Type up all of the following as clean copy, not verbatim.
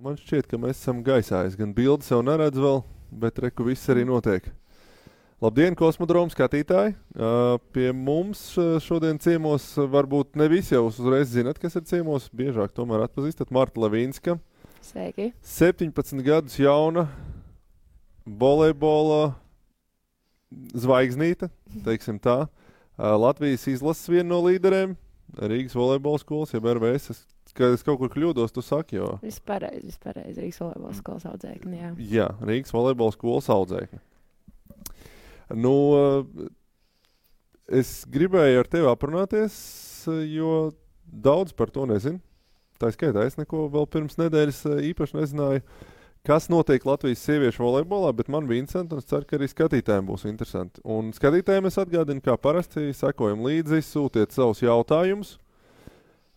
man šķiet, ka mēs esam gaisā. Es gan bildi sev neredzu vēl, bet reku viss arī notiek. Labdien, Kosmodroma skatītāji! Pie mums šodien ciemos varbūt ne visi jau uzreiz zinat, kas ir ciemos. Biežāk tomēr atpazīstat Marta Lavīnska. Sveiki! 17 gadus jauna volejbola zvaigznīte, teiksim tā. Latvijas izlases viena no līderēm, Rīgas volejbola skolas, jeb RVS. Kad es kaut kur kļūdos, tu saki, jo... Viss pareizi, Rīgas volejbola skolas audzēkni, jā. Jā, Rīgas volejbola skolas audzēkni. Nu, es gribēju ar tevi aprunāties, jo daudz par to nezinu. Tā skaitā, es neko vēl pirms nedēļas īpaši nezināju, kas notiek Latvijas sieviešu volejbolā, bet man bija interesanti, un es ceru, ka arī skatītājiem būs interesanti. Un skatītājiem es atgādinu, kā parasti sekojam līdzi, sūtiet savus jautājumus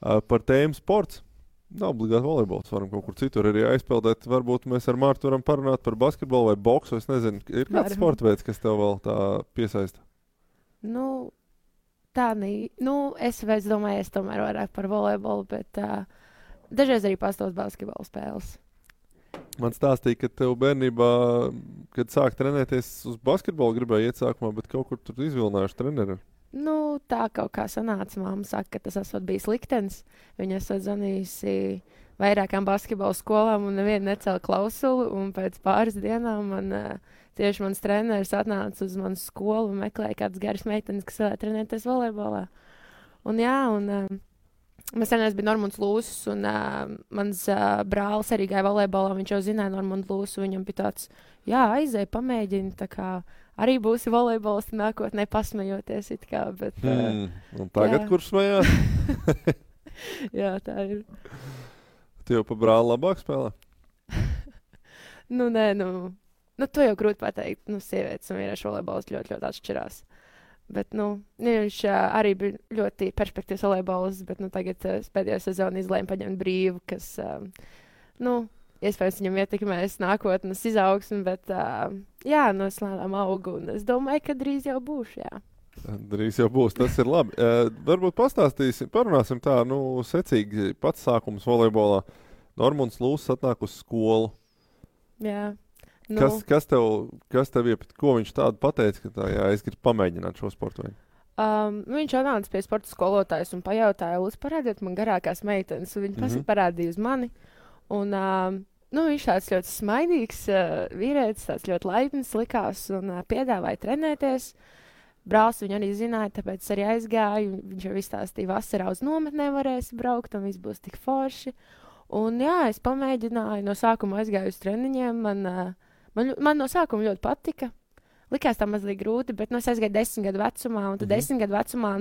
par tēmu sports. Nav obligāti volejbols, varam kaut kur citur arī aizpeldēt. Varbūt mēs ar Mārtu varam parunāt par basketbolu vai boksu, es nezinu. Ir kāds sporta veids, kas tev vēl tā piesaista? Nu, es domāju, es tomēr vairāk par volejbolu, bet dažreiz arī pastāv basketbola spēles. Man stāstīja, ka tev bērnībā, kad sāk trenēties uz basketbolu, gribēja iet sākumā, bet kaut kur tur izvilinājuši treneri. Nu, tā kaut kā sanāca. Māma saka, ka tas esot bijis liktenis. Viņa esot zvanījusi vairākām basketbola skolām un nevienu necēla klausuli. Un pēc pāris dienām tieši mans treneris atnāca uz manu skolu un meklēja kādas garas meitenes, kas vēlēja trenēties volejbolā. Un jā, mēs treneris bija Normunds Lūsis, un mans brālis arī gāja volejbolā. Viņš jau zināja Normundu Lūsu, viņam bija tāds, jā, aizēj, pamēģini, tā kā arī būsi volejbols nākotnē pasmejoties it kā, bet... un tagad, kurš smējās? Jā, tā ir. Tu jau pa brāli labāk spēlē? Nē, to jau grūti pateikt. Sievietes un vīriešu volejbols ļoti, ļoti atšķirās. Bet, viņš arī bija ļoti perspektīvs volejbols, bet, tagad pēdējo sezonu izlēma paņemt brīvu, kas, iespējams, viņam ietekmēs nākotnes izaugsmi, bet, es lēnām augu, un es domāju, ka drīz jau būšu, jā. Drīz jau būs, tas ir labi. Varbūt parunāsim tā, secīgi pats sākums volejbolā. Normunds Lūsis atnāk uz skolu. Jā. Kas tev ko viņš tādu pateica, ka es gribu pamēģināt šo sportu veidu? Viņš atnāca pie sporta skolotājas un pajautāja, lūdzu, parādiet man garākās meitenes, un viņi parādīja uz mani. Un, viņš tāds ļoti smaidīgs vīrietis, tāds ļoti laipns likās un piedāvāja trenēties. Brālis viņu arī zināja, tāpēc arī aizgāju. Viņš jau izstāstīja, vasarā uz nometnē varēs braukt un viss būs tik forši. Un jā, es pamēģināju, no sākuma aizgāju uz treniņiem. Man no sākuma ļoti patika. Likās tā mazliet grūti, bet es aizgāju 10 gadu vecumā, un tad 10 gadu vecumā,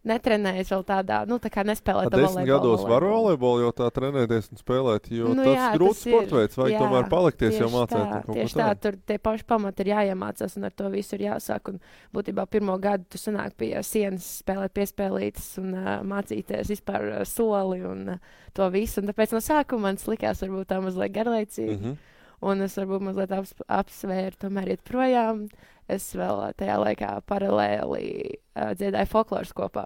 netrenējies vēl tādā, tā kā nespēlēt to volejbolu. 10 gados var volejbolu jau tā trenēties un spēlēt, jo tas grūts sportveids, vajag tomēr palikties jau mācēt. Tieši tā, tur tie paši pamati ir jāiemācās un ar to visu ir jāsāk. Un būtībā pirmo gadu tu sanāk pie sienas spēlēt piespēlītas un mācīties vispār soli un to visu. Un tāpēc no sākuma man likās varbūt tā mazliet garlaicīgi. Un es varbūt mazliet apsvēru, tomēr iet projām. Es vēl tajā laikā paralēli dziedāju folkloras kopā.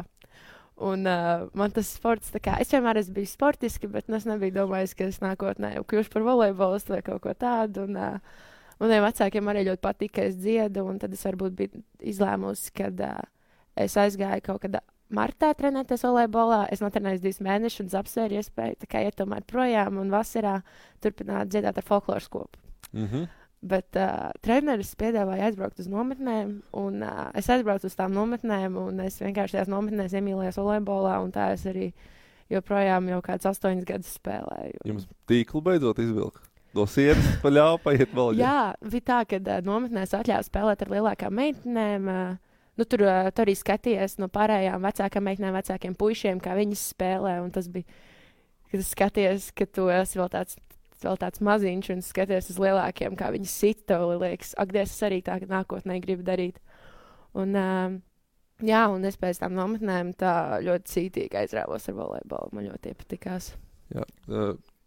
Un man tas sports, es vienmēr esmu bijis sportiski, bet es nebiju domājis, ka es nākotnē kļūšu par volejbolistu vai kaut ko tādu. Un maniem vecākiem arī ļoti patika, ka es dziedu, un tad es varbūt biju izlēmusi, kad es aizgāju kaut kad martā trenēties volejbolā. Es notrenēju 2 mēnešus un apsvēru iespēju iet tomēr projām un vasarā turpināt dziedāt ar folkloras kopu. Bet treneris piedāvāja aizbraukt uz nometnēm, un es aizbraucu uz tām nometnēm, un es vienkārši tajās nometnēs iemīlējos volejbolā, un tā es arī joprojām jau kāds 8 gadus spēlēju. Jums tīklu beidzot izvilka? No sienas paļāva paiet vēl? Jā, bija tā, ka nometnēs atļāva spēlēt ar lielākām meitenēm. Tur arī skaties no pārējām vecākām meitenēm, vecākiem puišiem, kā viņas spēlē, un tas bija, kad skaties, ka tu esi vēl tāds maziņš un skaties uz lielākiem, kā viņas sita, liekas, es arī tā nākotnē gribu darīt. Un, un es pēc tām nometnēm tā ļoti cītīgi aizrāvos ar volejbolu, man ļoti iepatikās. Jā,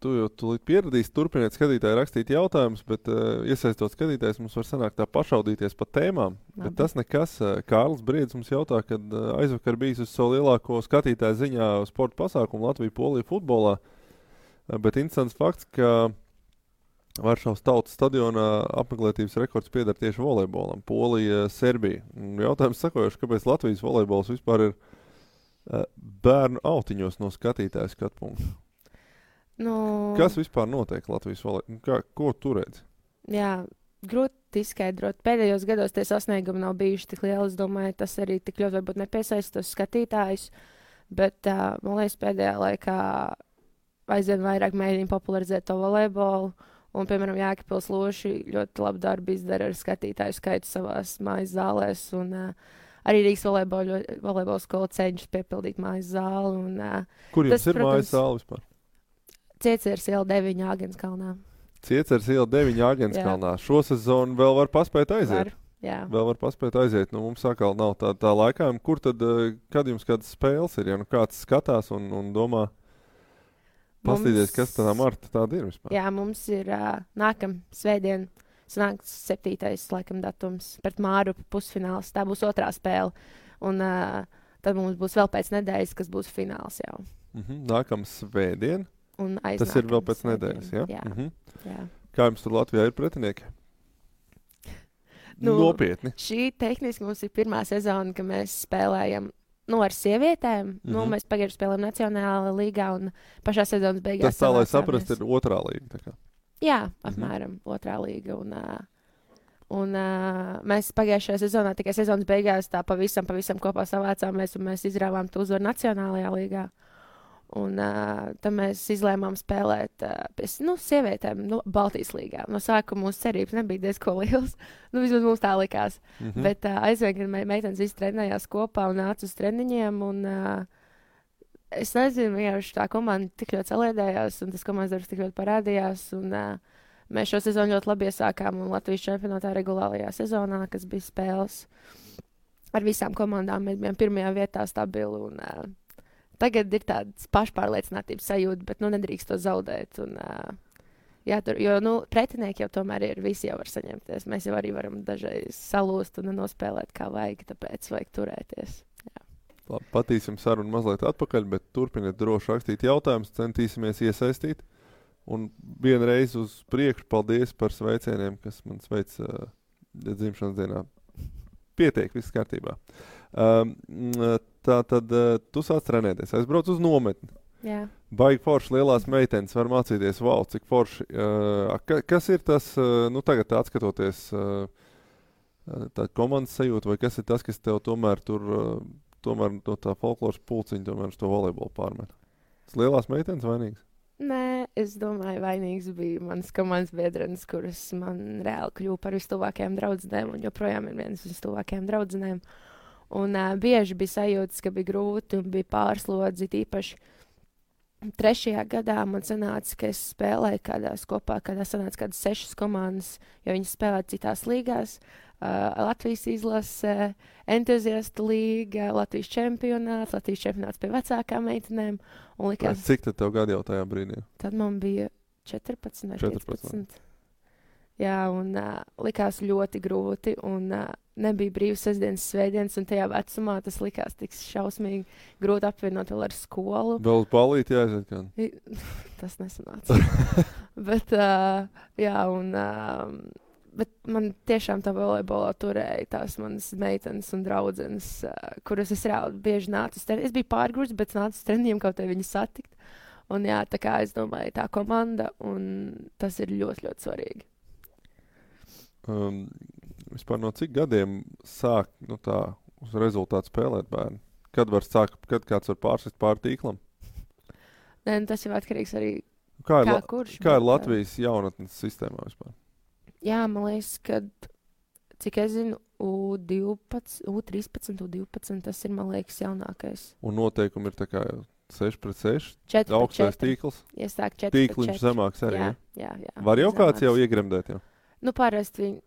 tu jau tūlīt pieradīsi, turpiniet skatītāji rakstīt jautājumus, bet iesaistot skatītājs mums var sanākt tā pašaudīties pa tēmām. Bet tas nekas. Kārlis Briedis mums jautā, kad aizvakar bijis uz savu lielāko skatītāju ziņā sporta pasākumu Latviju-Poliju futbolā. Bet interesants fakts, ka Varšavas tautas stadionā apmeklētības rekords pieder tieši volejbolam. Polija, Serbija. Jautājums sakojuši, kāpēc Latvijas volejbols vispār ir bērnu autiņos no skatītāja skatu punkta? Nu, Kas vispār notiek Latvijas volejbolā? Ko tu redzi? jā, grūti izskaidrot. Pēdējos gados tie sasniegumi nav bijuši tik lieli. Es domāju, tas arī tik ļoti varbūt nepiesaista tos skatītājus. Bet, man liekas, pēdējā laikā aizvien vairāk mēģina popularizēt to volejbolu. Un, piemēram, Jēkabpils Loši ļoti labu darbu izdara ar skatītāju skaitu savās mājas zālēs. Un arī Rīgas volejbola skola cenšas piepildīt mājas zāli. Un, Kur jums tas, ir protams, mājas zāle vispār? Ciecers iela 9 Āgenskalnā. Ciecers iela 9 Āgenskalnā. Šo sezonu vēl var paspēt aiziet. Vēl var paspēt aiziet. Nu, mums atkal nav tā laikā. Kur tad, kad jums kādas spēles ir? Ja nu kāds skatās un domā, pastīties, kas tā Marta tāda ir vispār? Jā, mums ir nākam svētdien, sanāks 7. laikam datums pret Mārupi pusfināls. Tā būs otrā spēle. Un tad mums būs vēl pēc nedēļas, kas būs fināls jau. Nākam svētdien? Un tas ir vēl pēc nedēļas, ja? Jā. Kā jums tur Latvijā ir pretinieki? Nopietni. Šī tehniski mums ir pirmā sezona, ka mēs spēlējam ar sievietēm. Mēs pagājuši spēlējam Nacionālajā līgā un pašā sezonas beigās. Tas tā, lai saprast, ir otrā līga. Tā kā. Jā, apmēram otrā līga. Un mēs pagājušajā sezonā, tikai sezonas beigās, tā pavisam kopā savācāmies un mēs izrāvām to uzvaru Nacionālajā līgā. Un tad mēs izlēmām spēlēt pie sievietēm Baltijas līgā. No sākuma mūsu cerības nebija diezko liels. Vismaz mums tā likās. Bet aizvien, kad meitenes visi trenējās kopā un nāca uz treniņiem. Un, es nezinu, vienkārši tā komanda tik ļoti saliedējās un tas komandas darbs tik ļoti parādījās. Un, mēs šo sezonu ļoti labi iesākām un Latvijas čempionātā regulārajā sezonā, kas bija spēles ar visām komandām. Mēs bijām pirmajā vietā stabili un tagad ir tāds pašpārliecinātības sajūta, bet nedrīkst to zaudēt. Un, pretinieki jau tomēr ir, visi jau var saņemties. Mēs jau arī varam dažreiz salūst un nospēlēt kā vajag, tāpēc vajag turēties. Jā. Labi, patīsim sarunu mazliet atpakaļ, bet turpiniet droši rakstīt jautājumus, centīsimies iesaistīt. Un vienreiz uz priekšu paldies par sveicieniem, kas man sveic dzimšanas dienā. Pietiek, viss kārtībā. Tā tad tu sāc trenēties, aizbrauc uz nometni. Jā. Baigi forši lielās meitenes var mācīties, wow, cik forši. Kas ir tas, tagad atskatoties tā komandas sajūta, vai kas ir tas, kas tev tomēr no tā folkloras pulciņa tomēr uz to volejbolu pārmet? Tas lielās meitenes vainīgs? Nē, es domāju, vainīgs bija mans komandas biedrenis, kuras man reāli kļuva par vistuvākajām draudzenēm un joprojām ir vienas vistuvākajām draudzenēm. Un bieži bija sajūtas, ka bija grūti un bija pārslodzi. Īpaši 3. gadā man sanāca, ka es spēlēju kādā sanāca kādas 6 komandas, jo viņas spēlēja citās līgās. Latvijas izlase, entuziastu līga, Latvijas čempionāts pie vecākām meitenēm. Likās, cik tad tev gadi jau tajā brīdī? Tad man bija 14 vai 15. Jā, un likās ļoti grūti, un nebija brīvas sestdienas, svētdienas, un tajā vecumā tas likās tik šausmīgi grūti apvienot vēl ar skolu. Vēl uz balīti jāaiziet kādu? Tas nesanāca. Bet, jā, un bet man tiešām tā volejbolā turēja tās manas meitenes un draudzenes, kuras es reāli bieži nācu uz treniņiem. Es biju pārgrūts, bet nācu uz treniņiem, kaut kā viņas satikt. Un jā, tā kā es domāju, tā komanda, un tas ir ļoti, ļoti svarīgi. Vispār no cik gadiem sāk tā uz rezultātu spēlēt bērni? Kad kāds var pārsist pāri tīklam? Nē, tas jau atkarīgs arī kā kurš. Kā ir Latvijas jaunatnes sistēmā vispār? Jā, man liekas, ka, cik es zinu, U13, U12, tas ir, man liekas, jaunākais. Un noteikumi ir tā kā 6-6? 4-4. Augstais tīkls? Iesāk 4-4. Tīkliņš zemāks arī, jā. Var jau kāds jau iegremdēt jau? Parasti viņi,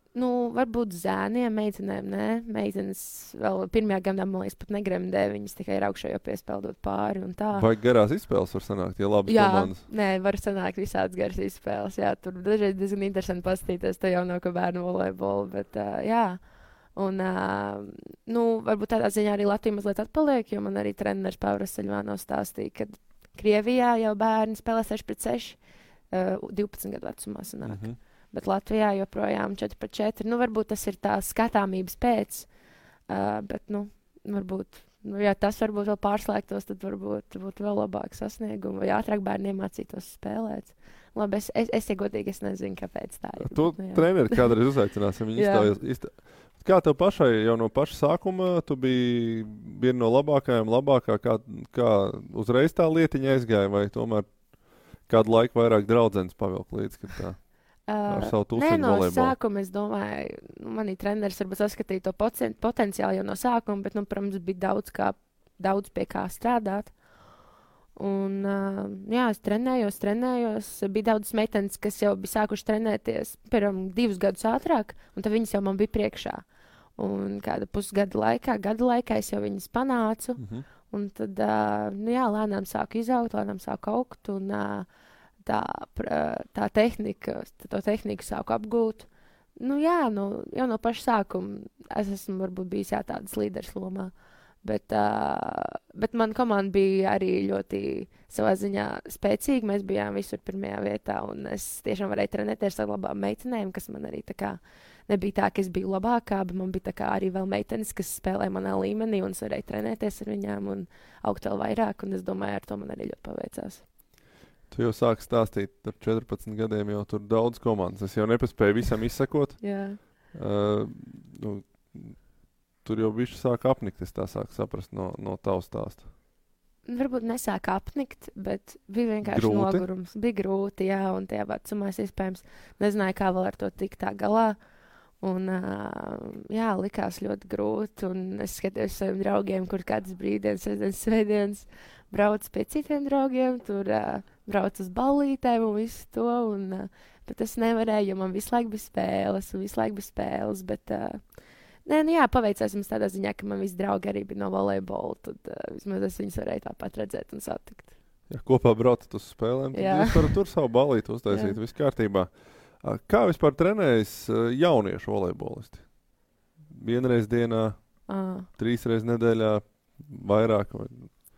varbūt zēniem, meitenēm, nē. Meitenes vēl pirmajā gadā, man liekas, pat negremdē. Viņas tikai ir augšā jau piespeldot pāri un tā. Vai garās izspēles var sanākt, ja labas komandas? Nē, var sanākt visādas garas izspēles. Jā, tur dažreiz diezgan interesanti paskatīties to jaunāko bērnu volejbolu, bet jā. Un, varbūt tādā ziņā arī Latvija mazliet atpaliek, jo man arī treneris Pāvils Saļvānovs stāstīja, ka Krievijā jau bērni spēlē 6-6, 12 gadu vecumā sanāk. Bet Latvijā joprojām 4-4. Nu, varbūt tas ir tā skatāmības pēc, bet, nu, varbūt, ja tas varbūt vēl pārslēgtos, tad varbūt būtu vēl labāk sasniegumi, vai ātrāk bērni iemācītos spēlēt. Labi, es godīgi, es nezinu, kāpēc tā ir. Tu treneri kādreiz uzaicināsim viņu Kā tev pašai jau no paša sākuma, tu biji viena no labākā, kā uzreiz tā lietiņa aizgāja, vai tomēr kādu laiku vairāk draudzenes pavilk līdz, kad tā ar savu tūsiņu volejbolu? No sākuma, es domāju, manī treneris varbūt saskatīja to potenciālu jau no sākuma, bet, nu, protams, bija daudz pie kā strādāt. Un, jā, es trenējos, bija daudz meitenes, kas jau bija sākuši trenēties, piemēram, 2 gadus ātrāk, un tad viņas jau man bija priekšā. Un kāda gada laikā es jau viņas panācu, un tad, nu jā, lēnām sāku izaugt, lēnām sāku augt, un to tehniku sāku apgūt. Nu jā, jau no paša sākuma es esmu varbūt bijis tādas līderes lomā. Bet man komanda bija arī ļoti savā ziņā spēcīga. Mēs bijām visur pirmajā vietā, un es tiešām varēju trenēties ar labām meitenēm, kas man arī tā kā nebija tā, ka es biju labākā, bet man bija tā kā arī vēl meitenes, kas spēlē manā līmenī, un es varēju trenēties ar viņām un augt vēl vairāk, un es domāju, ar to man arī ļoti paveicās. Tu jau sāki stāstīt, ar 14 gadiem jau tur daudz komandas. Es jau nepaspēju visam izsekot. Jā. Tur jau bišķi sāk apnikt, es tā sāku saprast no tavas stāsta. Varbūt nesāk apnikt, bet bija vienkārši nogurums. Bija grūti, jā, un tajā vecumā es iespējams nezināju, kā vēl ar to tikt tā galā. Un, jā, likās ļoti grūti, un es skatījos saviem draugiem, kur kādas brīvdienas, svētdienas brauc pie citiem draugiem, tur brauc uz ballītēm un visu to, bet es nevarēju, jo man visu laiku bija spēles, bet... Nē, nu jā, paveicās mums tādā ziņā, ka man visi draugi arī bija no volejbola, tad vismaz es viņus varēju tāpat redzēt un satikt. Ja kopā braucat uz spēlēm, tad jūs varat tur savu ballīti uztaisīt, viss kārtībā. Kā vispār trenējas jauniešu volejbolisti? Vienreiz dienā, 3 reizes nedēļā, vairāk? Vai?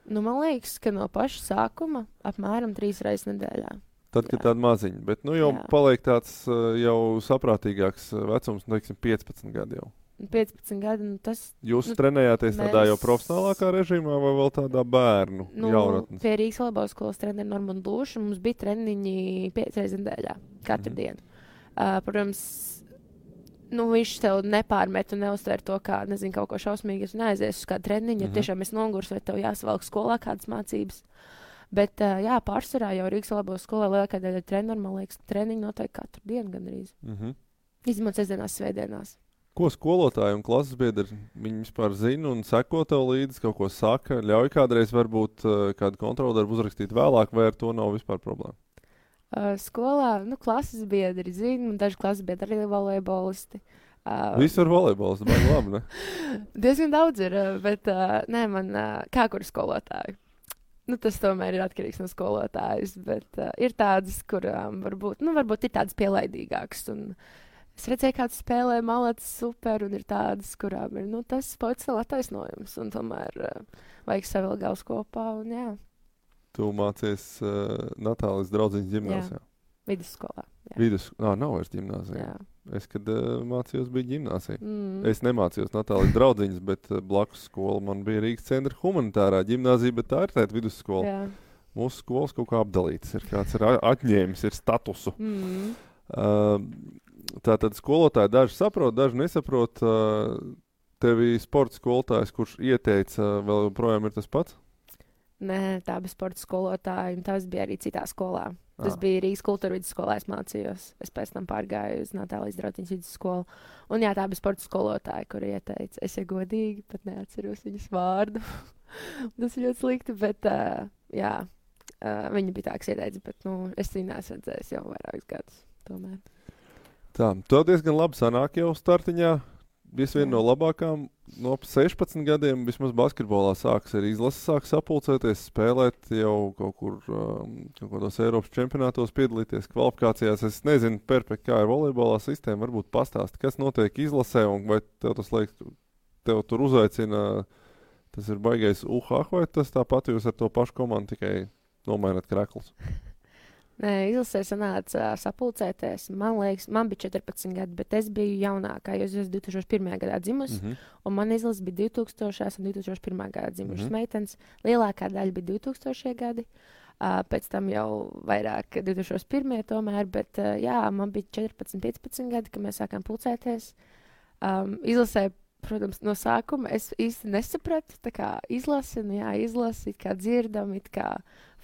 Nu, man liekas, ka no paša sākuma apmēram 3 reizes nedēļā. Tad, kad tāda maziņa, bet nu jau paliek tāds jau saprātīgāks vecums, teiksim, 15 gadi jau. 15 gadi, nu tas... Jūs trenējāties tādā jau profesionālākā režīmā vai vēl tādā bērnu jaunatnes? Pie Rīgas volejbola skolas treneri Normandu Lūšu mums bija treniņi 5 reizes nedēļā, katru dienu. Protams, nu viņš tev nepārmet un neuztver to kā, nezinu, kaut ko šausmīgi, ja tu neaizies uz kādu treniņu, ja tiešām es nogurs vai tev jāsavalk skolā kādas mācības. Bet, jā, pārsvarā jau Rīgas volejbola skolā lielākā daļa treneri, man liekas, treniņi notiek katru dienu gandrīz. Izņemot sestdienās, svētdienās. Ko skolotāji un klases biedri, viņi vispār zina un seko tev līdzi, kaut ko saka, ļauj kādreiz varbūt kādu kontroldarbu uzrakstīt vēlāk, vai ar to nav vispār problēma? Skolā, nu, klases biedri zina, un daži klases biedri arī volejbolisti. Visur volejbols, baigi labi, ne? Diezgan daudz ir, bet nē, man kā kur skolotāju. Nu, tas tomēr ir atkarīgs no skolotājas, bet ir tādas, kurām varbūt ir tādas pielaidīgākas, un es redzēju, kāds spēlē malāts super, un ir tādas, kurām ir, nu, tas potenciāli attaisnojums, un tomēr vajag savilkt galvas kopā, un jā. Tu mācies Natālijas draudziņas ģimnāzijā? Jā, vidusskolā. Nav vairs ģimnāzija. Jā. Es, kad mācījos, bija ģimnāzija. Es nemācījos Natālijas draudziņas, bet blakus skola man bija Rīgas centra humanitārā ģimnāzija, bet tā ir tāda vidusskola. Jā. Mūsu skolas kaut kā apdalītas ir, kāds ir atņēmis, ir statusu. Tātad skolotāji daži saprot, daži nesaprot. Tevi sporta skolotājs, kurš ieteica, vēl joprojām ir tas pats? Nē, tā bija sporta skolotāja, un tas bija arī citā skolā. Tas bija Rīgas kultūra vidusskolā, es mācījos. Es pēc tam pārgāju uz Natālijas draudziņas vidusskolu. Un jā, tā bija sporta skolotāja, kur ieteica. Es jau godīgi pat neatceros viņas vārdu. Tas ir ļoti slikti, bet jā, viņa bija tā, kas ieteica, bet nu, es viņu neesmu redzējis jau vairākus gadus tomēr. Tā, tev diezgan labi sanāk jau startiņā. Viena no labākām no 16 gadiem vismaz basketbolā sāks arī izlases, sāks sapulcēties, spēlēt jau kaut kur kaut kādos Eiropas čempionātos, piedalīties kvalifikācijās. Es nezinu, perfekti, kā ir volejbolā sistēma, varbūt pastāsti, kas notiek izlasē, un vai tev tas liekas, tev tur uzaicina, tas ir baigais vai tas tāpat jūs ar to pašu komandu tikai nomaināt kreklus? Nē, izlasē sanāca sapulcēties. Man liekas, man bija 14 gadi, bet es biju jaunākā, jo es esmu 2001. gadā dzimusi, un man izlase bija 2000. un 2001. gadā dzimušas meitenes. Lielākā daļa bija 2000. gadi, pēc tam jau vairāk 2001. tomēr, bet jā, man bija 14, 15 gadi, kad mēs sākām pulcēties. Izlasē, protams, no sākuma es īsti nesapratu, tā kā izlasi, izlasi, it kā dzirdam, it kā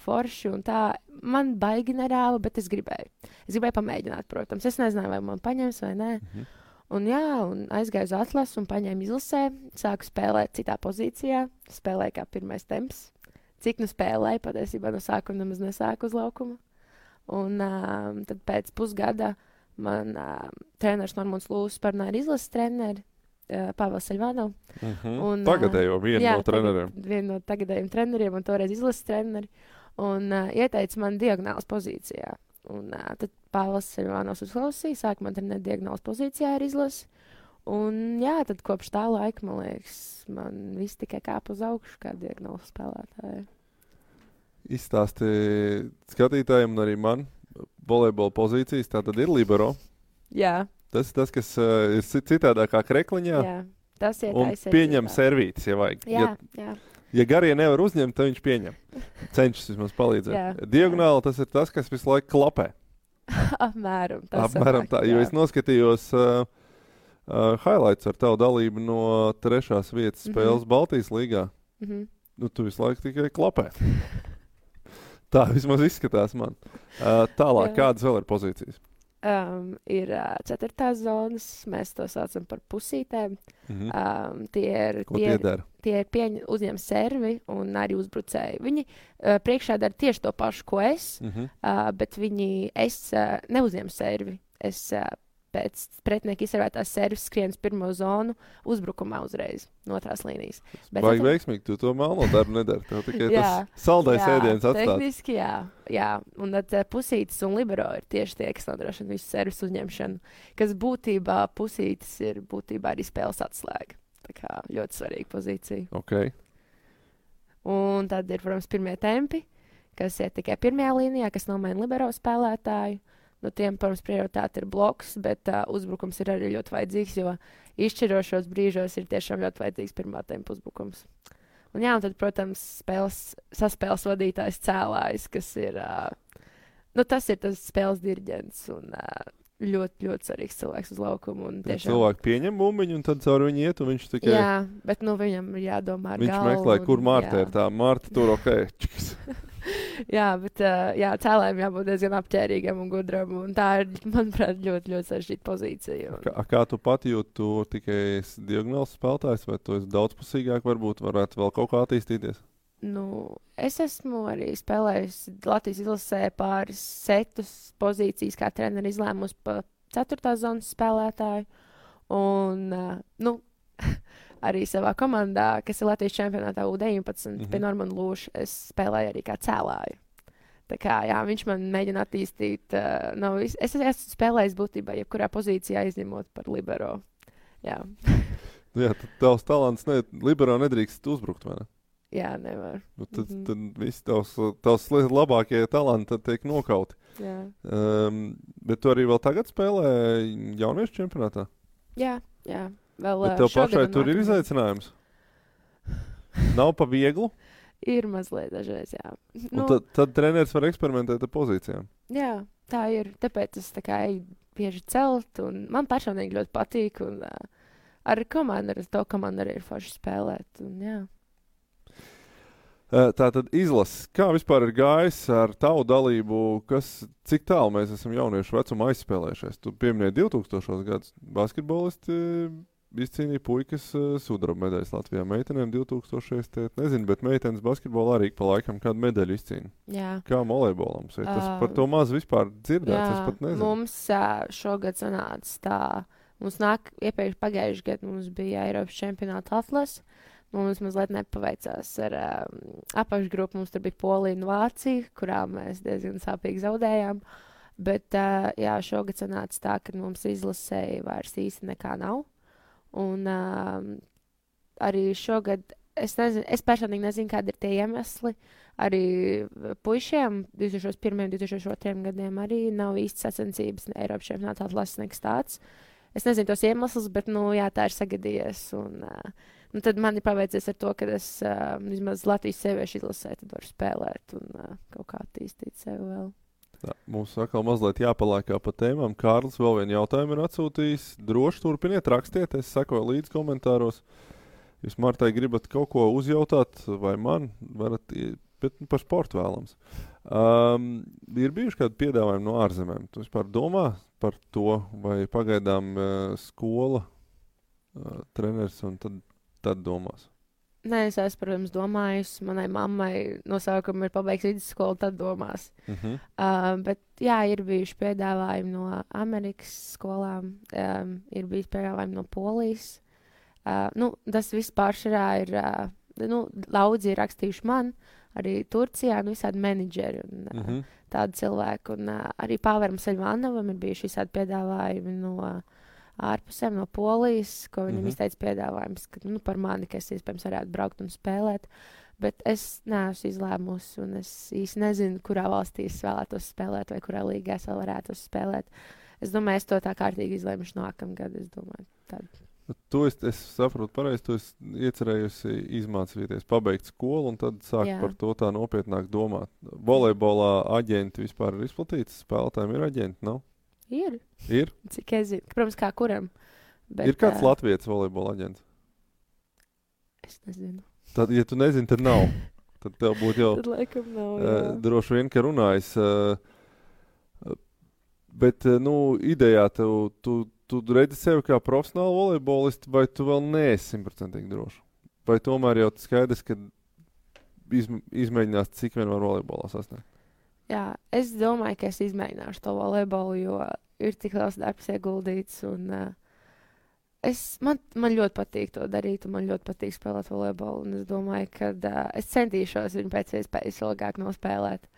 forši un tā. Man baigi nerāva, bet es gribēju. Es gribēju pamēģināt, protams. Es nezināju, vai man paņems vai nē. Un jā, un aizgāju uz atlasu un paņēmu izlasē. Sāku spēlēt citā pozīcijā. Spēlēju kā pirmais temps. Cik nu spēlēju, patiesībā no sākuma nemaz nesāku uz laukuma. Un tad pēc pusgada man treneris Normons Lūsis parunāja ar izlases treneri. Pāvils Saļvānov. Tagadējo vienu no treneriem. Vienu no tagadējiem treneriem un toreiz izlases treneri. Un ieteica man diagonālas pozīcijā. Un tad Pāvils Saļvānovs uzklausīja, sāka man trenēt diagonālas pozīcijā ar izlasi. Un jā, tad kopš tā laika, man liekas, man viss tikai kāp uz augšu kā diagonālas spēlētāji. Izstāsti skatītājiem un arī man volejbola pozīcijas, tā tad ir libero. Jā. Tas, kas ir citādākā krekliņā. Jā, tas ir un pieņem servītis, ja vajag. Jā. Ja garie nevar uzņemt, tad viņš pieņem. Cenšas vismaz palīdzēt. Diagonāli tas ir tas, kas visu laiku klapē. Apmēram tā, jo es noskatījos highlights ar tavu dalību no 3. vietas spēles Baltijas līgā. Nu, tu visu laiku tikai klapē. Tā vismaz izskatās man. Tālāk, kādas vēl ir pozīcijas? Ir 4. zonas, mēs to saucam par pusītēm. Tie ir uzņem servi un arī uzbrucēji. Viņi priekšā dara tieši to pašu, ko es, bet es neuzņemu servi. Es pēc pretinieka izsarvētās servis skrienas pirmo zonu uzbrukumā uzreiz no otrās līnijas. Vajag veiksmīgi, tu to melno darbu nedari. Tev tikai tas saldais ēdiens atstāts. Tehniski jā. Un tad pusītis un libero ir tieši tie, kas nodrošina visu servis uzņemšanu, kas būtībā pusītis ir būtībā arī spēles atslēga. Tā kā ļoti svarīga pozīcija. Okay. Un tad ir, protams, pirmie tempi, kas ir tikai pirmajā līnijā, kas nomaina libero spēlētāju. Nu, tiem, protams, prioritāte ir bloks, bet uzbrukums ir arī ļoti vajadzīgs, jo izšķirošos brīžos ir tiešām ļoti vajadzīgs pirmā tempa uzbrukums. Un jā, un tad, protams, saspēles vadītājs cēlājs, kas ir, tas ir tas spēles diriģents un ļoti, ļoti svarīgs cilvēks uz laukumu. Tiešām... Cilvēki pieņem bumbiņu un tad caur viņu iet, un viņš tikai... Jā, bet viņam ir jādomā ar galvu. Viņš meklē, kur Marta ir tā. Marta tur Jā, bet cēlājiem jābūt diezgan apķērīgam un gudram. Un tā ir, manuprāt, ļoti, ļoti sarežģīta pozīcija. Kā tu pati jūti, tu tikai esi diagonāls spēlētājs, vai tu esi daudzpusīgāk, varbūt varētu vēl kaut kā attīstīties? Es esmu arī spēlējusi Latvijas izlasē pāris setus pozīcijas, kā treneri izlēmusi pa 4. zonas spēlētāju. Un, arī savā komandā, kas ir Latvijas čempionātā U19, pie Normanda Lūša, es spēlēju arī kā cēlāju. Tā kā, jā, viņš man mēģina attīstīt. Es esmu spēlējis būtībā jebkurā pozīcijā izņemot par libero. Jā. Jā, tad tavs talants libero nedrīkst uzbrukt, vai ne? Jā, nevar. Tad visi tavs labākie talanti tiek nokauti. Jā. Bet tu arī vēl tagad spēlē jauniešu čempionātā? Jā. Bet tev pašai tur ir izaicinājums? Nav pa vieglu? Ir mazliet dažreiz, jā. Tad treneris var eksperimentēt ar pozīcijām? Jā, tā ir. Tāpēc es eju bieži celt, un man personīgi ļoti patīk, un ar to komandu arī ir forši spēlēt, un jā. Tātad izlases. Kā vispār ir gājis ar tavu dalību, cik tālu mēs esam jauniešu vecuma aizspēlējušies? Tu pieminēji 2000. gadus basketbolisti izcīnīja puikas sudraba medaļas Latvijā. Meitenēm 2000. Nezinu, bet meitenes basketbolā arī pa laikam kādu medaļu izcīna. Jā. Kā volejbolam? Tas par to maz vispār dzirdēts, es pat nezinu. Mums šogad sanāca tā. Mums iepriekš pagājuši gadu mums bija Eiropas čempionāta atlas. Mums mazliet nepaveicās ar apakšgrupu. Mums tur bija Polija un Vācija, kurā mēs diezgan sāpīgi zaudējām. Bet jā, šogad sanāca tā, ka mums izlasēja vairs īsti nekā nav. Un arī šogad es nezinu, es personīgi nezinu, kādi ir tie iemesli. Arī puišiem 2001. un 2002. gadiem arī nav īsti sacensības Eiropas čempionātā lases nekas tāds. Es nezinu tos iemeslus, bet, jā, tā ir sagadījies. Un tad man ir paveicies ar to, ka es vismaz Latvijas sieviešu izlasē tad varu spēlēt un kaut kā attīstīt sevi vēl. Tā, mums atkal mazliet jāpalēkā pa tēmām. Kārlis vēl vienu jautājumu ir atsūtījis. Droši turpiniet, rakstiet, es sekoju līdz komentāros. Jūs Martai gribat kaut ko uzjautāt vai man, varat, bet par sportu vēlams. Ir bijuši kādi piedāvājumi no ārzemēm? Tu vispār domā par to, vai pagaidām skola, treneris un tad domās? Nē, es esmu, protams, domājusi. Manai mammai no sākuma ir pabeigts vidusskolu, tad domās. Bet, jā, ir bijuši piedāvājumi no Amerikas skolām, ir bijis piedāvājumi no Polijas. Tas viss pāršarā ir, daudzi ir rakstījuši man, arī Turcijā, visādi menedžeri un tādi cilvēki. Un arī Pāveram Seļvānovam ir bijuši visādi piedāvājumi no ārpusēm, no Polijas, ko viņam izteica piedāvājums, ka, par mani, ka es iespējams varētu braukt un spēlēt. Bet es neesmu izlēmusi, un es īsti nezinu, kurā valstī es vēlētos spēlēt, vai kurā līgā es vēl varētu spēlēt. Es domāju, es to tā kārtīgi izlēmuši nākamgad, es domāju, tādu. Es saprotu pareizi, tu esi iecerējusi izmācīties, pabeigt skolu un tad sākt par to tā nopietnāk domāt. Volejbolā aģenti vispār ir izplatīts, spēlētājiem ir aģenti, nav? Ir. Ir? Cik es zinu. Protams, kā kuram. Bet, ir kāds latvietis volejbola aģents? Es nezinu. Tad, ja tu nezini, tad nav. Tad tev būtu jau tad laikam nav, jā. Droši vien, ka runājis. Bet, idejā tu redzi sevi kā profesionālu volejbolistu, vai tu vēl neesi 100% droši? Vai tomēr jau skaidrs, ka izmēģinās, cik vien var volejbolā sasniegt? Jā, es domāju, ka es izmēģināšu to volejbolu, jo ir tik liels darbs ieguldīts. Un, man ļoti patīk to darīt, un man ļoti patīk spēlēt volejbolu. Un es domāju, ka es centīšos viņu pēc iespējas ilgāk nospēlēt.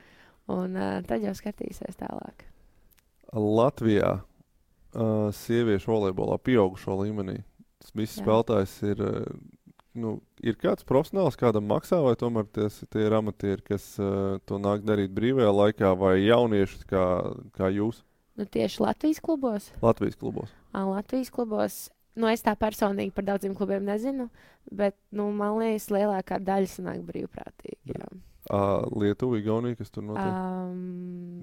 Un tad jau skatīsies tālāk. Latvijā sieviešu volejbolā pieaugušo līmenī tas viss spēlētājs ir... ir kāds profesionāls, kādam maksā, vai tomēr tie ir amatieri, kas to nāk darīt brīvajā laikā, vai jaunieši kā jūs? Tieši Latvijas klubos? Latvijas klubos. Latvijas klubos. Es tā personīgi par daudziem klubiem nezinu, bet, man liekas, lielākā daļa sanāk brīvprātīgi. Jā. Lietuva, Igaunija, kas tur notiek?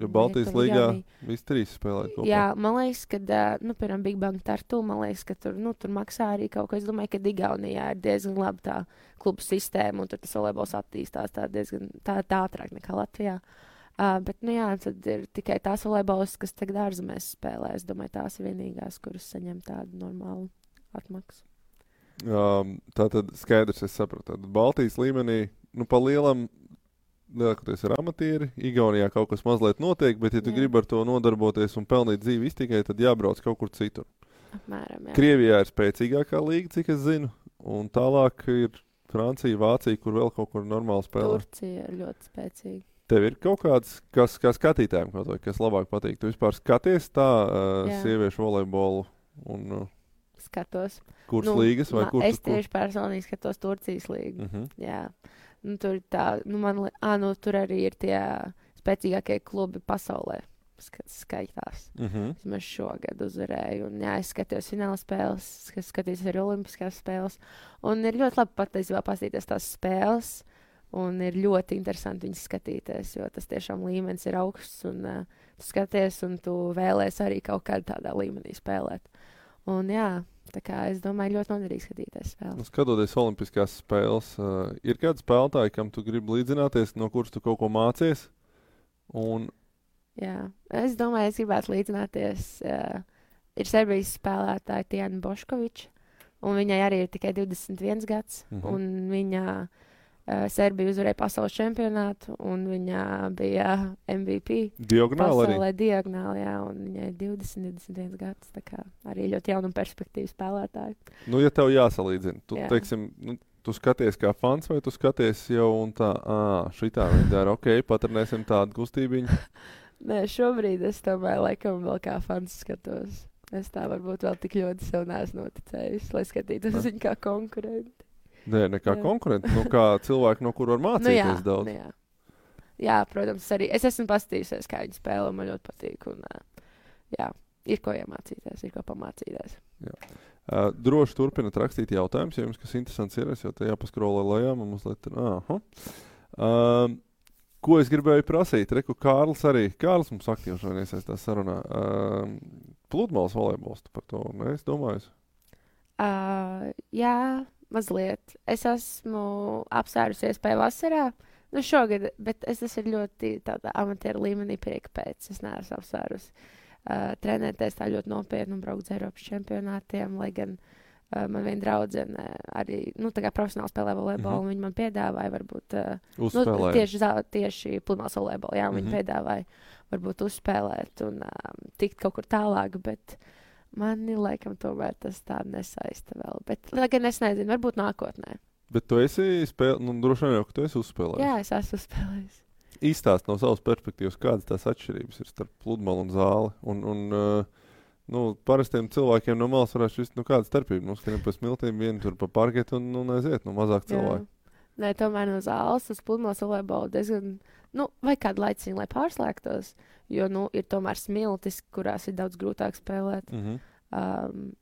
Jo Baltijas līgā visi trīs spēlē kopā. Jā, man liekas, ka, piemēram, Big Bang Tartu, man liekas, ka tur maksā arī kaut ko. Es domāju, ka Igaunijā ir diezgan laba tā klubu sistēma, un tur tas volejbols attīstās tā diezgan tā ātrāk nekā Latvijā. Bet, tad ir tikai tās volejbolas, kas tagad ārzemēs spēlē. Es domāju, tās ir vienīgās, kuras saņem tādu normālu atmaksu. Tātad skaidrs, es sapratu. Tātad Baltijas līmenī, pa lielam lielākoties ir amatieri, Igaunijā kaut kas mazliet notiek, bet ja tu gribi ar to nodarboties un pelnīt dzīvi iztikai, tad jābrauc kaut kur citur. Apmēram, jā. Krievijā ir spēcīgākā līga, cik es zinu, un tālāk ir Francija, Vācija, kur vēl kaut kur normāli spēlē. Turcija ir ļoti spēcīga. Tev ir kaut kāds, kā skatītājiem, kas labāk patīk? Tu vispār skaties tā sieviešu volejbolu un... Skatos. Kuras līgas vai kur? Es tieši personīgi skatos Turcijas līgu. Jā. Tur tā, tur arī ir tie spēcīgākie klubi pasaulē, skaitās. Mēs šogad uzvarēju, un es skatījos fināla spēles, skatījos arī olimpiskās spēles, un ir ļoti labi patiesībā paskatīties tās spēles, un ir ļoti interesanti viņas skatīties, jo tas tiešām līmenis ir augsts, un tu skaties, un tu vēlēs arī kaut kādā tādā līmenī spēlēt. Un jā, tā kā es domāju, ļoti noderīgi skatīties spēles. Skatoties olimpiskās spēles, ir kādi spēlētāji, kam tu gribi līdzināties, no kuras tu kaut ko mācies? Jā, es domāju, es gribētu līdzināties. Ir Serbijas spēlētāja Tijana Boškoviča, un viņai arī ir tikai 21 gads, un viņa Serbija uzvarēja pasaules čempionātu, un viņa bija MVP. Diagonāli arī? Pasaulē diagonāli, jā, un viņai ir 21 gads, tā kā arī ļoti jauna perspektīva spēlētāja. Ja tev jāsalīdzina, teiksim, tu skaties kā fans, vai tu skaties jau un tā, šitā viņi dara, patrenēsim tādu kustībiņu? Nē, šobrīd es tomēr laikam vēl kā fans skatos. Es tā varbūt vēl tik ļoti sev neesmu noticējis, lai skatītos viņu kā konkurenti. Nē, ne kā konkurenti, kā cilvēki, no kur var mācīties daudz. Jā, protams, arī es esmu paskatījusies, kā viņi spēlē, man ļoti patīk. Un, jā, ir ko iemācīties, ir ko pamācīties. Jā. Droši turpināt rakstīt jautājumus, ja jums kas interesants ir, es jau te jāpaskrolē lejā, man mazliet ir, ko es gribēju prasīt? Reku Kārlis arī. Kārlis mums aktīvi šodien iesaistās sarunā. Pludmales volejbols, par to neesi domājis? Jā, mazliet. Es esmu apsvērusies pēc vasarā. Nu, šogad, bet tas ir ļoti tādā amatieru līmenī prieka pēc. Es neesmu apsvērus trenēties tā ļoti nopietni un braukt uz Eiropas čempionātiem, lai gan man viena draudzene arī, tā kā profesionāli spēlē volejbolu, un viņi man piedāvāja varbūt tieši pludmales volejbolu, jā, un viņi piedāvāja varbūt uzspēlēt un tikt kaut kur tālāk, bet mani laikam tomēr tas tā nesaista vēl. Bet, lai gan es nezinu, varbūt nākotnē. Bet tu esi droši vien jau, ka tu esi uzspēlējis. Jā, es esmu uzspēlējis. Īstāst no savas perspektīvas, kādas tās atšķirības ir starp pludmali un zāli. Parastiem cilvēkiem no malas varētu šķist, kāda starpība. Mums skrien pa smiltīm, vieni tur pa parketu un aiziet, mazāk cilvēku. Nē, tomēr no zāles uz pludmales volejbolu diezgan, vai kādu laiciņu, lai pārslēgtos, jo, ir tomēr smiltis, kurās ir daudz grūtāk spēlēt.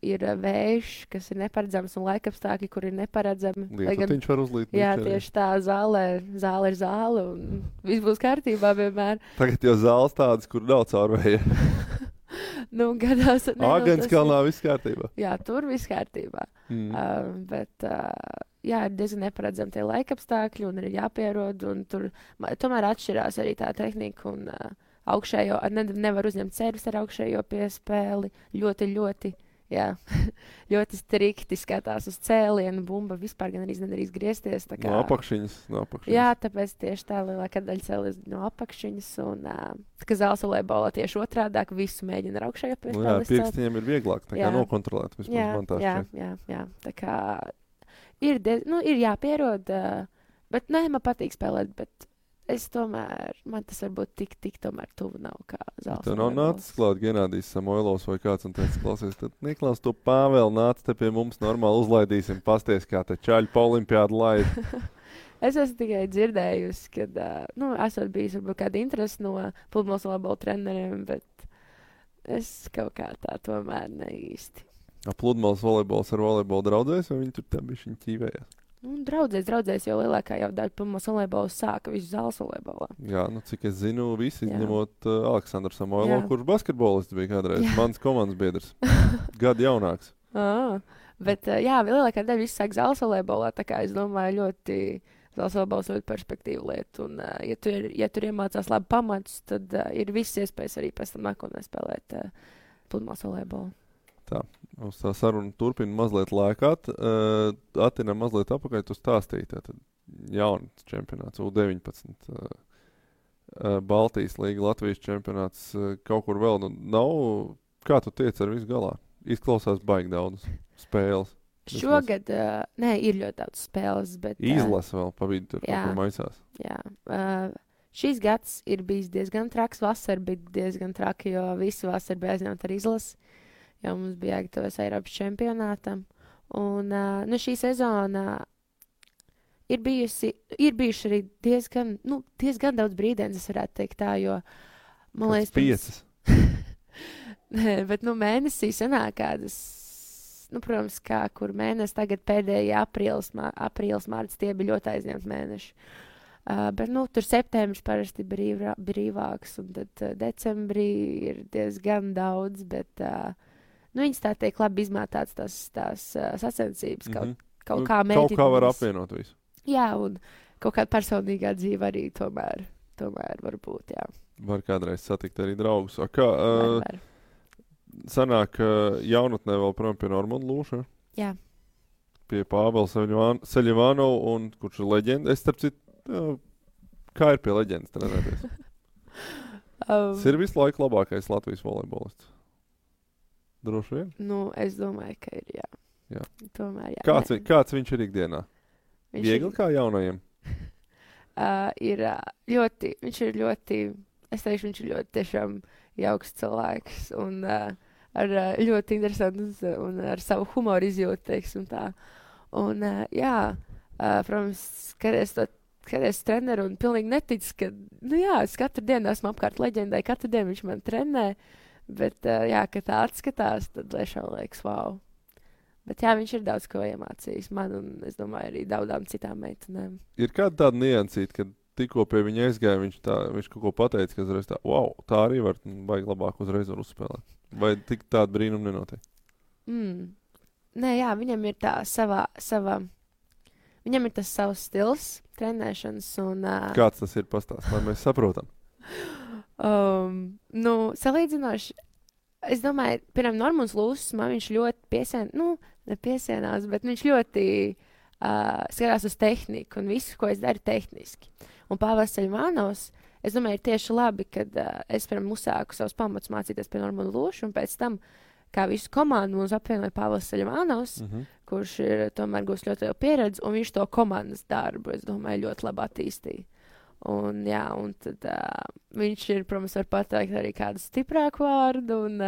Ir vējš, kas ir neparedzams, un laikapstākļi, kur ir neparedzami. Viņš var uzlīt. Jā, tieši tā, zāle ir zāle, un viss būs kārtībā vienmēr. Tagad jau zāles tādas, kur nav caurvēja. Gadās. Āgenskalnā viss kārtībā. Jā, tur viss kārtībā. Bet, jā, ir diezgan neparedzami tie laikapstākļi, un ir jāpierod, un tur tomēr atšķirās arī tā tehnika, un augšējo, nevar uzņemt servis ar augšējo piespēli, ļoti, jā, ļoti strikti skatās uz cēlienu, bumba vispār gan arī nedrīkst griezties. Tā kā, no apakšiņas. Jā, tāpēc tieši tā lielākā daļa cēlies no apakšiņas, un ka zāles volejbolā tieši otrādāk visu mēģina ar augšējo piespēli. Jā, pirkstiņiem ir vieglāk tā kā nokontrolēt, vismaz man tā šķiet. Jā, tā kā ir jāpierod, bet man patīk spēlēt, bet es tomēr, man tas varbūt tik tomēr tuvu nav kā zāles. Tev nav nācis klāt Genādijs Samoilovs vai kāds un teica, klausies, tad Niklaus, tu Pāvēl nāc te pie mums normāli uzlaidīsim, pasties, kā te čaļu pa olimpiādu laid. Es esmu tikai dzirdējusi, kad, esot bijis varbūt kāda interesi no pludmales volejbola treneriem, bet es kaut kā tā tomēr ne īsti. Pludmales volejbols ar volejbolu draudzēs, vai viņi tur tā bišķiņ ķīvējās? Draudzēs, jo lielākā jau daļa pludmales volejbola sāka visu zāles volejbolā. Jā, cik es zinu, visi izņemot Aleksandru Samoilovu, kurš basketbolists bija kādreiz, mans komandas biedrs, gadu jaunāks. Bet lielākā daļa visu sāk zāles volejbolā, tā kā es domāju ļoti zāles volejbols ļoti perspektīvu lietu, un ja tur iemācās labi pamatus, tad ir viss iespējas arī pēc tam nākotnē spēlēt pludmales volejbolu. Tā, mums tā saruna turpina mazliet lēkāt. Atinam mazliet apakaļ, tu stāstīji, tātad jauns čempionāts, U19, Baltijas līga, Latvijas čempionāts, kaut kur vēl. Nav, kā tu tiec ar visu galā? Izklausās baigi daudz spēles. Šogad, ir ļoti daudz spēles, bet... Izlasa vēl pa vidu tur, kaut kur maisās. Jā, šīs gads ir bijis diezgan traks, vasara bija diezgan traki, jo visu vasaru bija aizņemt ar izlasi. Jo mums bija jāgatavojas Eiropas čempionātam. Un šī sezona ir bijuši arī diezgan daudz brīdienas, es varētu teikt tā, jo, man liekas... 5. Nē, bet, mēnesī sanāk kādas, protams, kur mēnesis tagad pēdējie aprīlis, mārts, tie bija ļoti aizņemti mēneši. Bet, tur septembris parasti brīvāks, un tad decembrī ir diezgan daudz, bet... viņas tā teikt labi izmētāts tās sacensības, kaut kā mēģināt. Kaut kā var apvienot visu. Jā, un kaut kāda personīgā dzīve arī tomēr var būt, jā. Var kādreiz satikt arī draugus. Kā sanāk jaunatnē vēl prom pie Normonda Lūša? Jā. Pie Pāvela Seļivānova, un kurš ir leģenda. Es starp citu, kā ir pie leģendas trenēties? Tas ir visu laiku labākais Latvijas volejbolists. Droši vien? Es domāju, ka ir, jā. Tomēr, jā. Kāds viņš ir ikdienā? Viegli kā jaunajiem? Viņš ir ļoti, es teikšu, viņš ir ļoti tiešām jauks cilvēks un ar ļoti interesantu un ar savu humoru izjūtu, teiksim tā. Un, Protams, skaties treneru un pilnīgi netic, ka, nu jā, es katru dienu esmu apkārt leģendai, katru dienu viņš man trenē, bet, jā, kad tā atskatās, tad tiešām liekas, wow. Bet jā, viņš ir daudz ko iemācījis man un, es domāju, arī daudzām citām meitenēm. Ir kāda tāda niansīta, kad tikko pie viņa aizgāja, viņš kaut ko pateica, ka uzreiz tā, wow, tā arī var, vajag labāk uzreiz var uzspēlēt. Vai tik tāda brīnuma nenotiek? Nē, jā, viņam ir tā viņam ir tas savs stils trenēšanas un... Kāds tas ir pastāst, lai mēs saprotam? Nu, salīdzinoši, es domāju, piemēram, Normons Lūsis, man viņš ļoti nepiesienās, bet viņš ļoti skatās uz tehniku un visu, ko es daru tehniski. Un Pāvils Ceļmanovs, es domāju, ir tieši labi, kad es, piemēram, uzsāku savus pamatus mācīties pie Normona Lūša, un pēc tam, kā visu komandu mums apvienoja Pāvils Ceļmanovs, kurš ir tomēr gūs ļoti lielu pieredzi, un viņš to komandas darbu, es domāju, ļoti labi attīstīja. Un, jā, un tad viņš ir, protams, var pateikt arī kādu stiprāku vārdu, un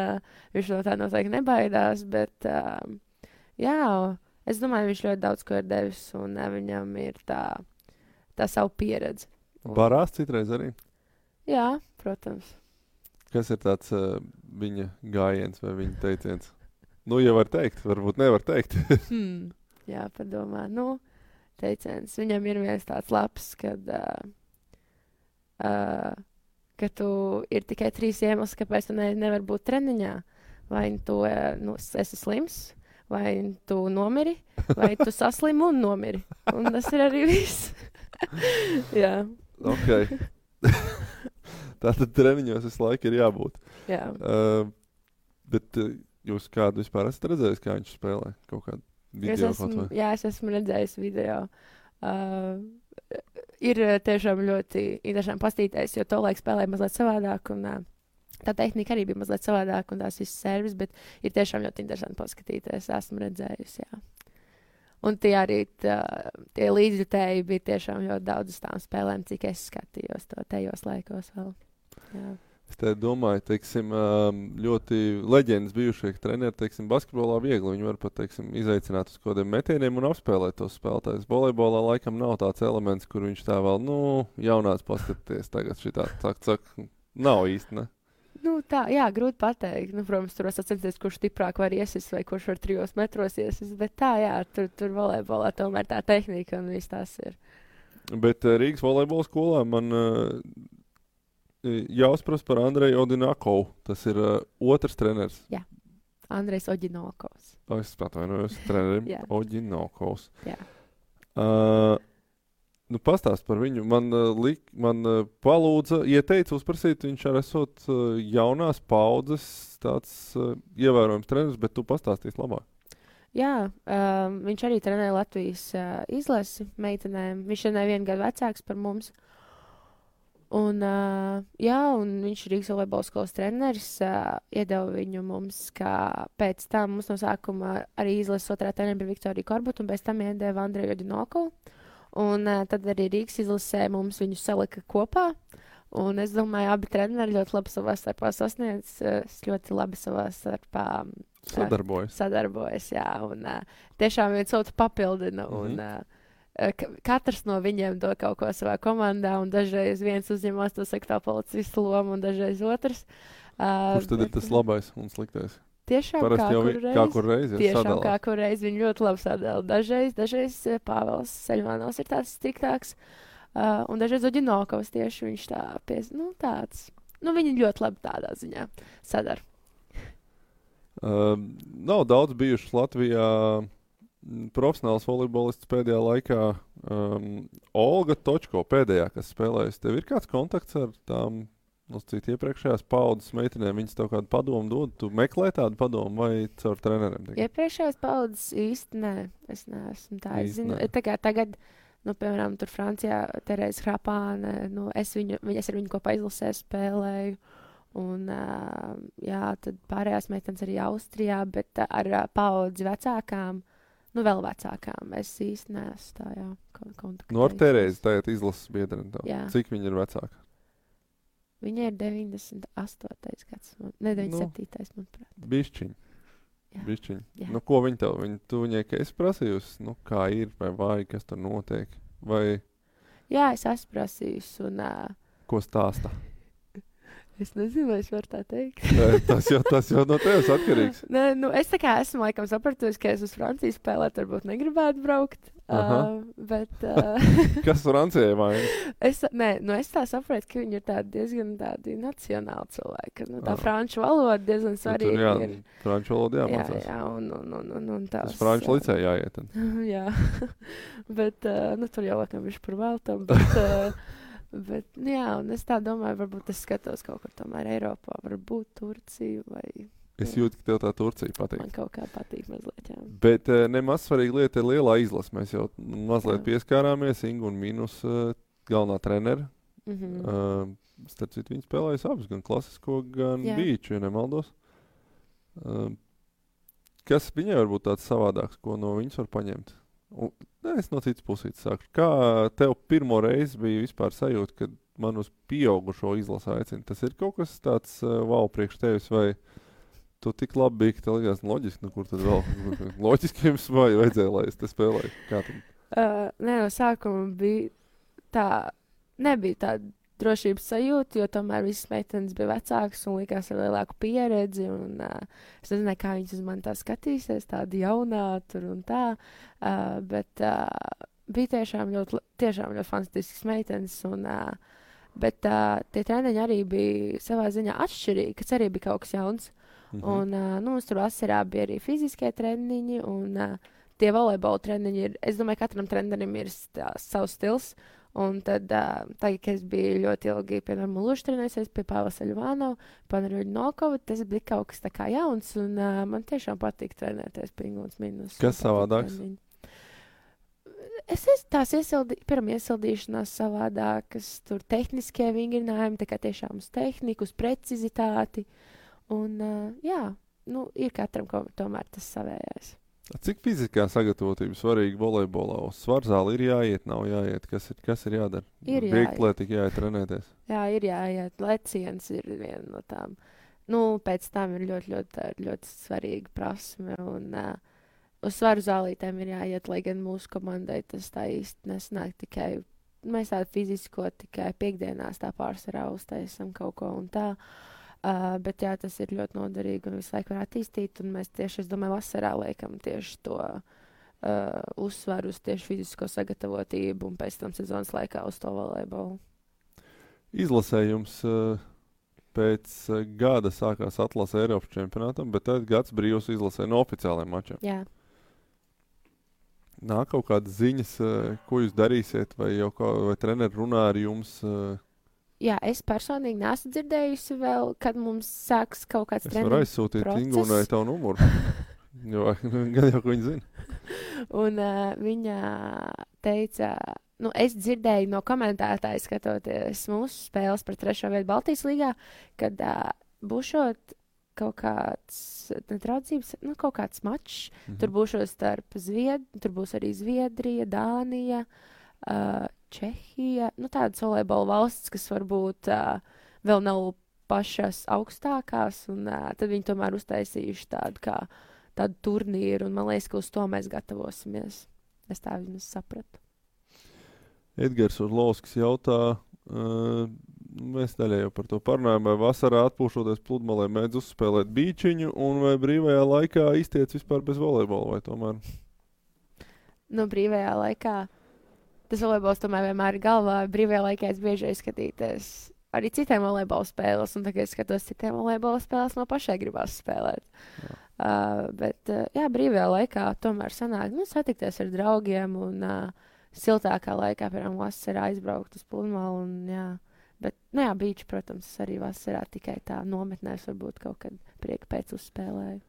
viņš no tā noteikti nebaidās, bet, jā, es domāju, viņš ļoti daudz ko ir devis, un viņam ir tā savu pieredzi. Barās citreiz arī? Jā, protams. Kas ir tāds viņa gājiens vai viņa teiciens? Nu, ja var teikt, varbūt nevar teikt. Jā, padomā. Nu, teiciens. Viņam ir viens tāds labs, ka tu ir tikai 3 iemesli, kāpēc tu nevar būt treniņā. Vai tu esi slims, vai tu nomiri, vai tu saslimi un nomiri. Un tas ir arī viss. Jā. Ok. Tātad treniņos visu laiku ir jābūt. Jā. Bet jūs kādu vispār esat redzējis, kā viņš spēlē? Kaut kādu video kaut vai? Jā, es esmu redzējis video. Ir tiešām ļoti interesanti pastīties, jo to laiku spēlēja mazliet savādāk, un tā tehnika arī bija mazliet savādāk, un tās visas servis, bet ir tiešām ļoti interesanti paskatīties. Esmu redzējis, jā. Un tie arī tie līdzjutēji bija tiešām ļoti daudz uz tām spēlēm, cik es skatījos to tajos laikos vēl. Jā. Es te domāju, teiksim, ļoti leģendas bijušie treneri, teiksim, basketbolā viegli. Viņi var pat, teiksim, izaicināt uz kodiem metieniem un apspēlēt tos spēlētājus. Volejbolā laikam nav tāds elements, kur viņš tā vēl, jaunās paskatīties tagad šitā, nav īsti, ne? Nu, tā, jā, grūti pateikt. Nu, protams, tur var sacensties, kurš stiprāk var iesist vai kurš var 3 metros iesist, bet tā, jā, tur volejbolā tomēr tā tehnika un viss tās ir. Bet Rīgas volejbola skolā man jāuzprast par Andreju Odinakovu. Tas ir otrs treneris. Jā, Andrejs Oģinokovs. Es atvainojos trenerim. Oģinokovs. Jā. Pastāst par viņu. Man palūdza, ieteica uzprasīt, viņš arī esot jaunās paudzes tāds ievērojams treneris, bet tu pastāstīsi labāk. Jā, viņš arī trenē Latvijas izlasi meitenēm. Viņš ir nevienu gadu vecāks par mums. Un, jā, un viņš ir Rīgas volejbola skolas treneris, iedeva viņu mums, kā pēc tam mums no sākuma arī izlases otrā treneri bija Viktorija Korbuta, un pēc tam iedeva Andreju Oģinokovu. Un tad arī Rīgas izlasē mums viņu salika kopā. Un es domāju, abi treneri ļoti labi savā starpā sasniedz, ļoti labi savā starpā sadarbojas, jā. Un tiešām viens otru papildina. Un katrs no viņiem dod kaut ko savā komandā, un dažreiz viens uzņemās to sekretā policistu lomu, un dažreiz otrs. Kurš tad ir tas labais un sliktais? Tiešām kā kur reiz, tiešām kā kur reiz viņi ļoti labi sadala. Dažreiz Pāvils Ceļmanovs ir tāds striktāks, un dažreiz Oģinokovs tieši viņš tāds. Viņi ļoti labi tādā ziņā sadara. Nav daudz bijušas Latvijā profesionāls volejbolists pēdējā laikā. Olga Točko pēdējā, kas spēlējas. Tev ir kāds kontakts ar tām iepriekšējās paudzes meitenēm? Viņas tev kādu padomu dod? Tu meklē tādu padomu vai caur treneriem? Iepriekšējās paudzes īsti nē. Es neesmu tā. Es zinu, tagad, piemēram, tur Francijā Terēza Hrapāne, es ar viņu kopā izlasē spēlēju. Un, jā, tad pārējās meitenes arī Austrijā, bet ar paudzi vecākām, vēl vecākām, es īsti neesmu tā, jā, kontaktējusies. Ar Terēzi tagad izlases biedreni tev. Cik viņa ir vecāka? Viņa ir 98. gads, ne 97. manuprāt. Bišķiņ. Jā. bišķiņ. Jā. Nu, ko viņi tev? Tu viņai, ka esi prasījusi, nu, kā ir, vai vajag, kas tur notiek? Vai Jā, es esmu prasījusi, un ko stāsta? es nezinu, vai es varu tā teikt. Nē, tas jau no tevis atkarīgs. Nē, nu, es tā kā esmu laikam sapratusi, ka es uz Franciju spēlēt, varbūt negribētu braukt. Aha. Bet Kas Francijai vainas? es tā saprotu, ka viņi ir diezgan tādi nacionāli cilvēki. Ka, nu, tā Ah. franču valoda diezgan Tur svarīga jā, ir. franču valoda Jā, jāmācās. jā, un tās. Tas franču licē jāiet. Tad. Jā, bet nu, tur jau laikam viņš par veltam. Bet, nu, jā, un es tā domāju, varbūt es skatos kaut kur tomēr Eiropā, varbūt Turciju vai Es Jā. jūtu, ka tev tā Turcija patīk. man kaut kā patīk mazliet, jā. Bet nemaz svarīga lieta ir lielā izlase. Mēs jau mazliet Jā. pieskārāmies Ingu un Minus galvenā trenera. Mhm. Starp citu, viņi spēlējas abus, gan klasisko, gan Jā. bīču, ja nemaldos. Kas viņai var būt tāds savādāks, ko no viņas var paņemt? Es no citas puses sāku. Kā tev pirmo reizi bija vispār sajūta, kad man uz pieaugušo izlasi aicina? Tas ir kaut kas tāds wow priekš tevis, vai tu tik labi biji, ka tev likās loģiski, nu kur tad vēl? Loģiski jums vajadzēja, lai es te spēlēju. Kā tad? Nē, no sākuma bija tā, nebija tāda drošības sajūta, jo tomēr visas meitenes bija vecākas un likās ar lielāku pieredzi. Un, es nezināju, kā viņas uz mani tā skatīsies, tāda jaunā tur un tā. Bet bija tiešām ļoti fantastisks meitenes. Bet tie treniņi arī bija savā ziņā atšķirīgi, kas arī bija kaut kas jauns. Un mums tur vasarā bija arī fiziskie treniņi un tie volejbola treniņi ir, es domāju, katram trenerim ir savs stils. Un tad, tagad, kad es biju ļoti ilgi, piemēram, Luši trenējusies pie Pāvila Ļuvānova, Panaruļa Nokova, tas bija kaut kas tā kā jauns, un man tiešām patīk trenēties pie Inguns Minus. Kas savādāks? Tās pirmā iesildīšanās savādākas, tur tehniskie vingrinājumi, tā kā tiešām uz tehniku, uz precizitāti. Un, jā, nu, ir katram tomēr tas savējais. Cik fiziskā sagatavotība svarīga volejbolā? Uz svarzāli ir jāiet, nav jāiet. Kas ir jādara? Ir Vieglatlētīgi jāiet trenēties. Jā, ir jāiet. Leciens ir viena no tām. Nu, pēc tam ir ļoti svarīga prasme. Un uz svaru zālītēm ir jāiet, lai gan mūsu komandai tas tā īsti nesnāk tikai. Mēs tādu fizisko tikai piekdienās tā pārsvarā uztaisam kaut ko un tā. Bet jā, tas ir ļoti noderīgi un visu laiku var attīstīt. Un mēs tieši, es domāju, vasarā liekam tieši to uzsvaru uz tieši fizisko sagatavotību un pēc tam sezonas laikā uz to volejbolu. Izlasējums pēc gada sākās atlase Eiropas čempionātam, bet tad gads brīvs izlasē no oficiālajiem mačiem. Jā. Nāk kaut kādas ziņas, ko jūs darīsiet, vai treneri runā ar jums? Jā, es personīgi neesmu dzirdējusi vēl, kad mums sāks kaut kāds Es varu aizsūtīt process. Ingūnai tavu numuru. Jo, gan jau, ko viņa zina. Un viņa teica, nu, es dzirdēju no komentētāja skatoties mūsu spēles par 3. vietu Baltijas līgā, kad būšot kaut kāds netraucības, nu, kaut kāds mačs. Tur būšot starp tur būs arī Zviedrija, Dānija, Čehija, nu tādas volejbola valsts, kas varbūt vēl nav pašas augstākās, un tad viņi tomēr uztaisījuši tādu turnīru, un man liekas, ka uz to mēs gatavosimies. Es tā vismaz sapratu. Edgars Orlovskis jautā, mēs daļai jau par to parunājam, vai vasarā atpūšoties pludmalē mēdz uzspēlēt bīčiņu, un vai brīvajā laikā iztiec vispār bez volejbola, vai tomēr? Nu, brīvajā laikā tas volejbols tomēr vienmēr ir galvā. Brīvajā laikā es bieži skatīties arī citiem volejbola spēles, un tagad es skatos citiem volejbola spēles, man pašai gribās spēlēt. Bet, jā, brīvajā laikā tomēr sanāk, nu, satikties ar draugiem un siltākā laikā, piemēram, vasarā aizbraukt uz pludmali, un jā. Bet, nu jā, bīči, protams, arī vasarā tikai tā nometnēs varbūt kaut kad prieka pēc uzspēlēju.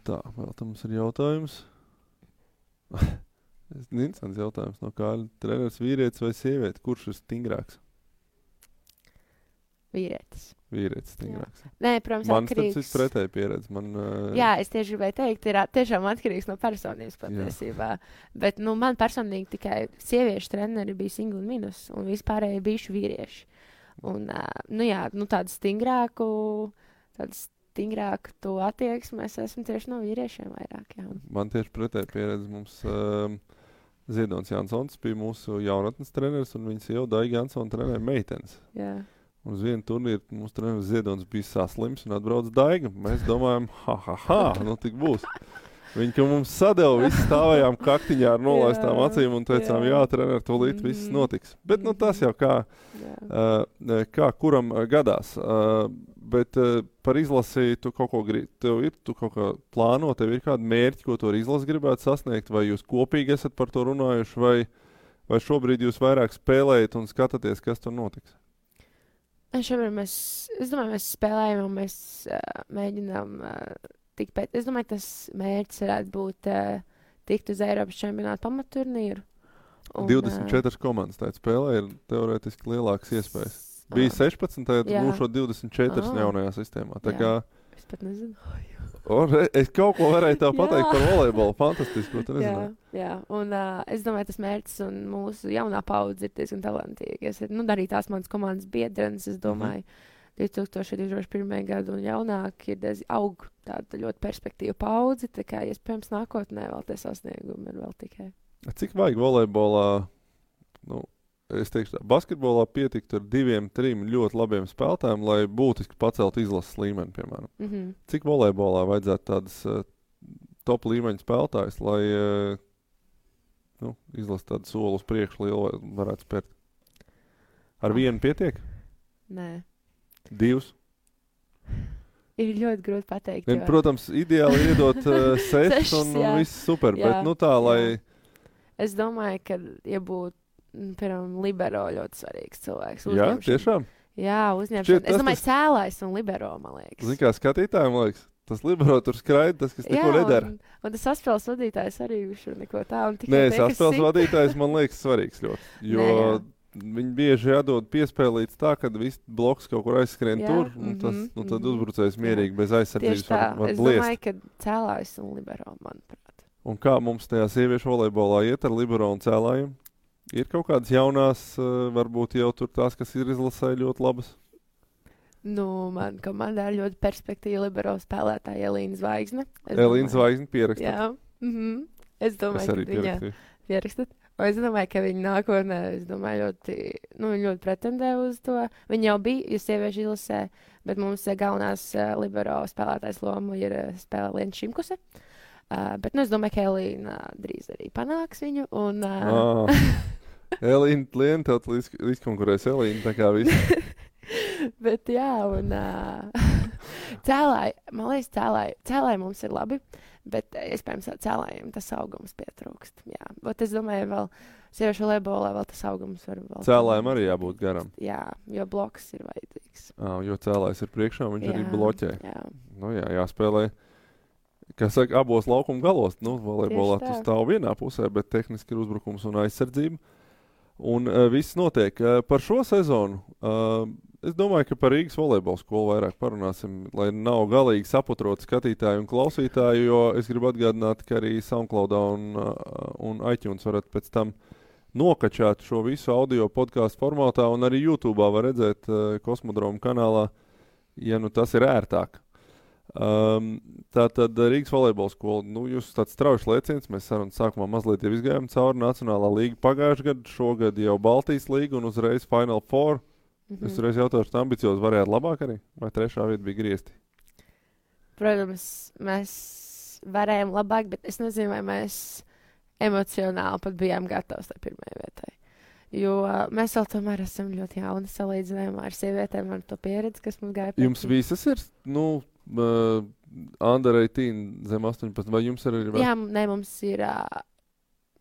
Tā, vēl tam mums ir jautājums. Interesants jautājums no Kāļa. Treneris vīrietis vai sieviete? Kurš ir stingrāks? Vīrietis. Vīrietis stingrāks. Jā. Nē, protams, man atkarīgs. Man tas ir pretēji pieredze. Jā, es tieši gribēju teikt, ir tiešām atkarīgs no personības patiesībā. Bet, nu, man personīgi tikai sieviešu treneri bija Inga un Minus, un vispārēji bijuši vīrieši. Un, nu jā, nu tādu stingrāku, stingrāku to attieksmi es esmu tieši no vīriešiem vairāk. Jā. Man tieši pretēji pieredze mums Ziedonis Jansons bija mūsu jaunatnes treneris, un viņas jau Daiga Jansona trenēja meitenes. Jā. Un uz vienu turnīru mūsu treneris Ziedonis bija saslims un atbrauc Daiga. Mēs domājam, nu tik būs. Viņi, ka mums sadeva, visi stāvējām kaktiņā ar nolaistām acīm un teicām, jā, trener, tūlīt viss notiks. Bet, nu, tas jau kā kuram gadās. Bet par izlasi tu kaut ko tu kaut kā plāno, tev ir kādi mērķi, ko tu ar izlasi gribētu sasniegt, vai jūs kopīgi esat par to runājuši, vai šobrīd jūs vairāk spēlējat un skatāties, kas tur notiks? Šobrīd es domāju, mēs spēlējam un mēs mēģinām tikpēc. Es domāju, tas mērķis varētu būt tikt uz Eiropas čempionātu pamatturnīru. 24 komandas tādā spēlē ir teorētiski lielākas iespējas. Bija 16, tad būšot 24 jaunajā sistēmā. Tā kā es pat nezinu. Es kaut ko varēju tā pateikt par volejbolu. Fantastiski, ko tu nezināji. Jā. Un es domāju, tas mērķis un mūsu jaunā paudze ir diezgan talantīga. Arī tās manas komandas biedrenes, es domāju, 2021. gadu un jaunāk ir aug tāda ļoti perspektīva paudze, tā kā iespējams nākotnē vēl tie sasniegumi ir vēl tikai. Cik vajag volejbolā, es teikšu tā, basketbolā pietikt ar 2-3 ļoti labiem spēlētājiem, lai būtiski paceltu izlases līmeni, piemēram. Cik volejbolā vajadzētu tādas top līmeņa spēlētājs, lai izlases tādu soli uz priekšu lielu varētu spērt? Ar vienu pietiek? Nē. 2? Ir ļoti grūti pateikt. Jo... Protams, ideāli ir iedot 6 un viss super, bet tā, lai... Es domāju, ka, ja būtu, piemēram, libero ļoti svarīgs cilvēks. Jā, tiešām? Jā, uzņemšana. Es domāju, cēlājs un libero, man liekas. Zini, kā skatītājiem, liekas, tas libero tur skraida, tas, kas neko nedara. Un tas saspēles vadītājs arī viņš neko tā. Nē, saspēles vadītājs man liekas svarīgs ļoti, jo... Viņi bieži jādod piespēlīts tā, kad viss bloks kaut kur aizskrien tur, un tad uzbrucējs mierīgi bez aizsardzības var bliest. Es domāju, ka cēlājs un libero, manuprāt. Un kā mums tajā sieviešu volejbolā iet ar libero un cēlājiem? Ir kaut kādas jaunās, varbūt jau tur tās, kas ir izlasē ļoti labas? Man komandā ir ļoti perspektīva libero spēlētāja Elīna Zvaigzne. Elīna Zvaigzne pierakstat? Jā. Es domāju, ka viņa pierakstat. Es domāju, ka viņa nākotnē, ļoti pretendē uz to. Viņa jau bija sieviešu izlasē, bet mums galvenās libero spēlētājs lomu ir spēlē Liena Šimkuse. Bet es domāju, ka Elīna drīz arī panāks viņu. Elīna, Liena, tev līdzkonkurēs Elīna, tā kā viss. Bet jā, un cēlāji, man liekas, cēlāji mums ir labi. Bet, iespējams, cēlājiem tas augums pietrūkst. Jā, bet es domāju, vēl sieviešu volejbolā vēl tas augums var vēl... Cēlājiem arī jābūt garam. Jā, jo bloks ir vajadzīgs. Jo cēlājs ir priekšā, viņš arī bloķē. Jā. Jāspēlē, kā saka, abos laukuma galos. Volejbolā tu stāv vienā pusē, bet tehniski ir uzbrukums un aizsardzība. Un viss notiek. Par šo sezonu... Es domāju, ka par Rīgas volejbola skolu vairāk parunāsim, lai nav galīgi saputrot skatītāju un klausītāju, jo es gribu atgādināt, ka arī SoundCloudā un iTunes varat pēc tam nokačāt šo visu audio podcastu formātā, un arī YouTube'ā var redzēt Kosmodroma kanālā, ja tas ir ērtāk. Tātad Rīgas volejbola skola, jūs tāds strauji lēciens, mēs sarunas sākumā mazliet jau izgājām cauri Nacionālā līga pagājušajā gadā, šogad jau Baltijas līga un uzreiz Final Four. Es reiz jautāšu, tā ambiciozi varētu labāk arī? Vai 3. vieta bija griezti? Protams, mēs varējām labāk, bet es nezinu, vai mēs emocionāli pat bijām gatavi tai 1. vietai. Jo mēs vēl tomēr esam ļoti jauni salīdzinājumā ar sievietēm, ar to pieredzi, kas mums gāja pēc. Jums visas ir, under 18 zem 18, vai jums ir arī? Jā, mums ir...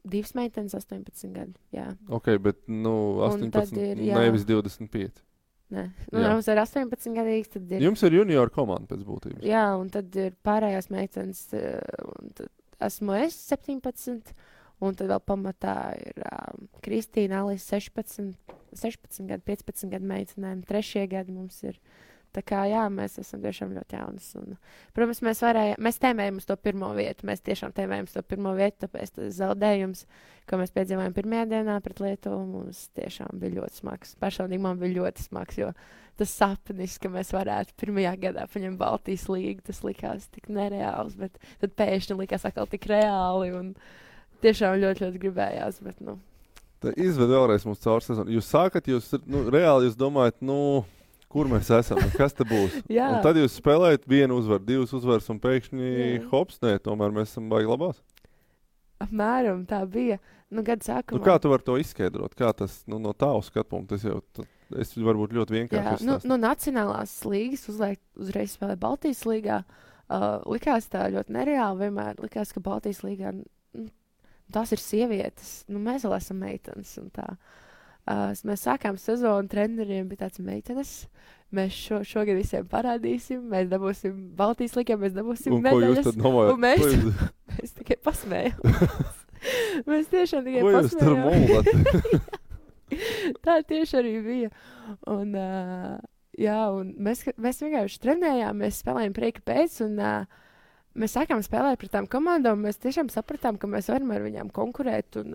2 meitenes, 18 gadi, jā. Ok, bet, 18, nevis 25. Nē, mums ir 18 gadīgs, tad ir... Jums ir junior komanda pēc būtības. Jā, un tad ir pārējās meitenes, un tad esmu es 17, un tad vēl pamatā ir Kristīna, Alisa 16 gadu, 15 gadu meitenēm, 3. gadi mums ir Tā kā, jā, mēs esam tiešām ļoti jaunas. Un, protams, mēs tēmējam uz to pirmo vietu. Mēs tiešām tēmējam uz to pirmo vietu, tāpēc tas zaudējums, ko mēs piedzīvojām pirmajā dienā pret Lietuvu, mums tiešām bija ļoti smags. Personīgi man bija ļoti smags, jo tas sapnis, ka mēs varētu pirmajā gadā paņemt Baltijas līgu, tas likās tik nereāls, bet tad pēkšņi likās atkal tik reāli un tiešām ļoti, ļoti gribējās, bet, nu. Izved vēlreiz mums caur sezonu. Jūs sākat, reāli jūs domājat, kur mēs esam, kas te būs. Un tad jūs spēlējat 1 uzvaru, 2 uzvaras un pēkšņi hops, nē, tomēr mēs esam baigi labās. Apmēram tā bija. Gada sākumā. Kā tu vari to izskaidrot? Kā tas, no tā uz skatu punktu, es varbūt ļoti vienkārši izstāstu. No nacionālās līgas uzreiz spēlē Baltijas līgā. Likās tā ļoti nereāli vienmēr. Likās, ka Baltijas līgā tās ir sievietes. Mēs vēl esam meitenes un tā. Mēs sākām sezonu, treneriem bija tāds meitenes. Mēs šogad visiem parādīsim, mēs dabūsim Baltijas līgā, mēs dabūsim medaļas. Un mēs tikai pasmējām. Mēs tiešām tikai pasmējām. Ko jūs tur mūlat? Tā tieši arī bija. Un mēs vienkārši trenējām, mēs spēlējām prieka pēc un mēs sākām spēlēt pret tām komandām, mēs tiešām sapratām, ka mēs varam ar viņām konkurēt, un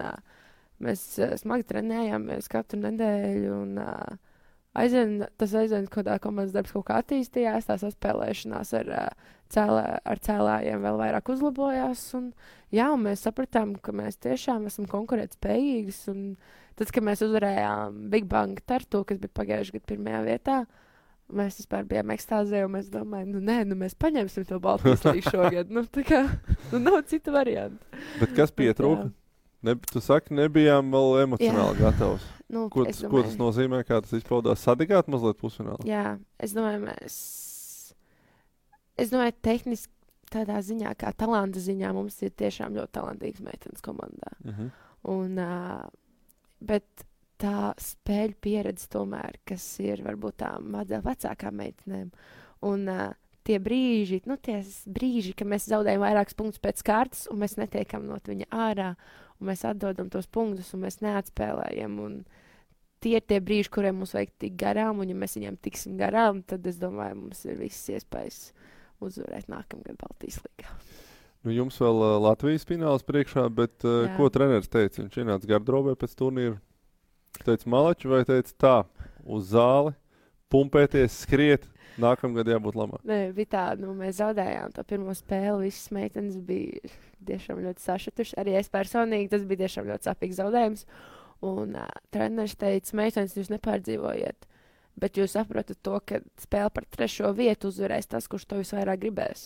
mēs smagi trenējāmies katru nedēļu, un tas aizvien, kādā komandas darbs kaut kā attīstījās, tās atspēlēšanās ar cēlājiem vēl vairāk uzlabojās, un mēs sapratām, ka mēs tiešām esam konkurētspējīgas, un tad, kad mēs uzvarējām Big Bang Tartu, kas bija pagājušajā gadā pirmajā vietā, mēs vispār bijām ekstāzē, un mēs domājam, mēs paņemsim to Baltijas līgu šogad. Tā kā, nav citu variantu. Bet kas pietrūka? Tu saki, nebijām vēl emocionāli gatavs. Ko tas nozīmē, kā tas izpaudās? Sadegāt mazliet pusfinālā? Jā, es domāju, tehniski tādā ziņā, kā talanta ziņā, mums ir tiešām ļoti talantīgs meitenes komandā. Bet tā spēļu pieredze tomēr, kas ir varbūt tām mazliet vecākām meitenēm. Un tie brīži, ka mēs zaudējam vairākus punktus pēc kārtas, un mēs netiekam no viņa ārā, un mēs atdodam tos punktus, un mēs neatspēlējam. Un tie ir tie brīži, kuriem mums vajag tikt garām, un ja mēs viņiem tiksim garām, tad es domāju, mums ir visas iespējas uzvarēt nākamgad Baltijas līgā. Jums vēl Latvijas fināls priekšā, bet ko treneris teica? Viņš ienāca gardrobē pēc turnīra. Teica malači vai teica tā, uz zāli, pumpēties, skriet, nākamgad jābūt labāk? Nē, bija tā, mēs zaudējām to pirmo spēli, visas meitenes bija tiešām ļoti sašutušas. Arī es personīgi, tas bija tiešām ļoti sāpīgs zaudējums. Un treneris teica, meitenes, jūs nepārdzīvojiet, bet jūs saprotat to, ka spēle par 3. vietu uzvarēs tas, kurš to visvairāk gribēs.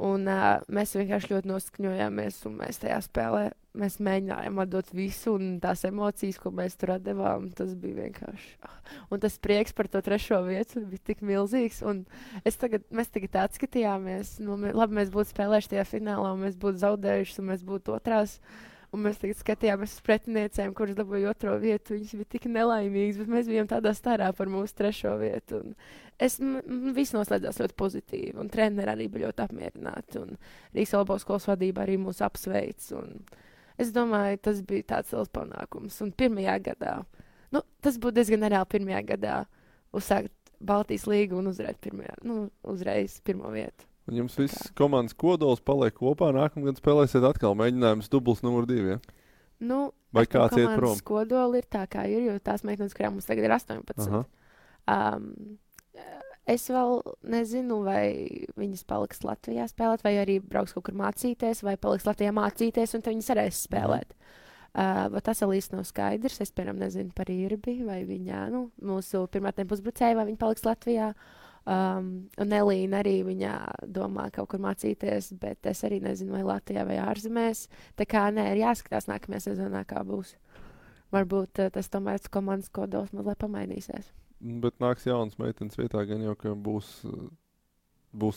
Un mēs vienkārši ļoti noskaņojāmies, un mēs tajā spēlē mēs mēģinājām atdot visu, un tās emocijas, ko mēs tur atdevām, tas bija vienkārši. Un tas prieks par to 3. vietu bija tik milzīgs, un mēs tagad atskatījāmies, labi, mēs būtu spēlējuši tajā finālā, un mēs būtu zaudējuši, un mēs būtu otrās. Un mēs tagad skatījāmies uz pretiniecēm, kuras dabūja 2. vietu. Viņas bija tik nelaimīgas, bet mēs bijām tādā starā par mūsu 3. vietu. Viss noslēdzās ļoti pozitīvi. Un treneri arī bija ļoti apmierināti. Un Rīgas Olabovas skolas vadība arī mūs apsveic. Es domāju, tas bija tāds liels panākums. Un pirmajā gadā, tas būtu diezgan nereāli pirmajā gadā uzsākt Baltijas līgu un uzvarēt uzreiz 1. vietu. Un jums viss komandas kodols paliek kopā, nākamgad spēlēsiet atkal mēģinājums dubls numur 2, ja? Vai kāds iet prom? Komandas kodoli ir tā, kā ir, jo tās meitenes, kurām mums tagad ir 18. Es vēl nezinu, vai viņas paliks Latvijā spēlēt, vai arī brauks kaut kur mācīties, vai paliks Latvijā mācīties, un tad viņas varēs spēlēt. Bet tas vēl īsti nav skaidrs. Es, piemēram, nezinu par Irbi, vai viņa, mūsu pirmātnē pusbrucēja, vai viņa paliks Latvijā. Un Elīna arī viņa domā kaut kur mācīties, bet es arī nezinu, vai Latvijā vai ārzemēs. Tā kā ir jāskatās nākamajā sezonā, kā būs. Varbūt tas tomēr komandas kodols mazliet pamainīsies. Bet nāks jaunas meitenes vietā, gan jau, ka būs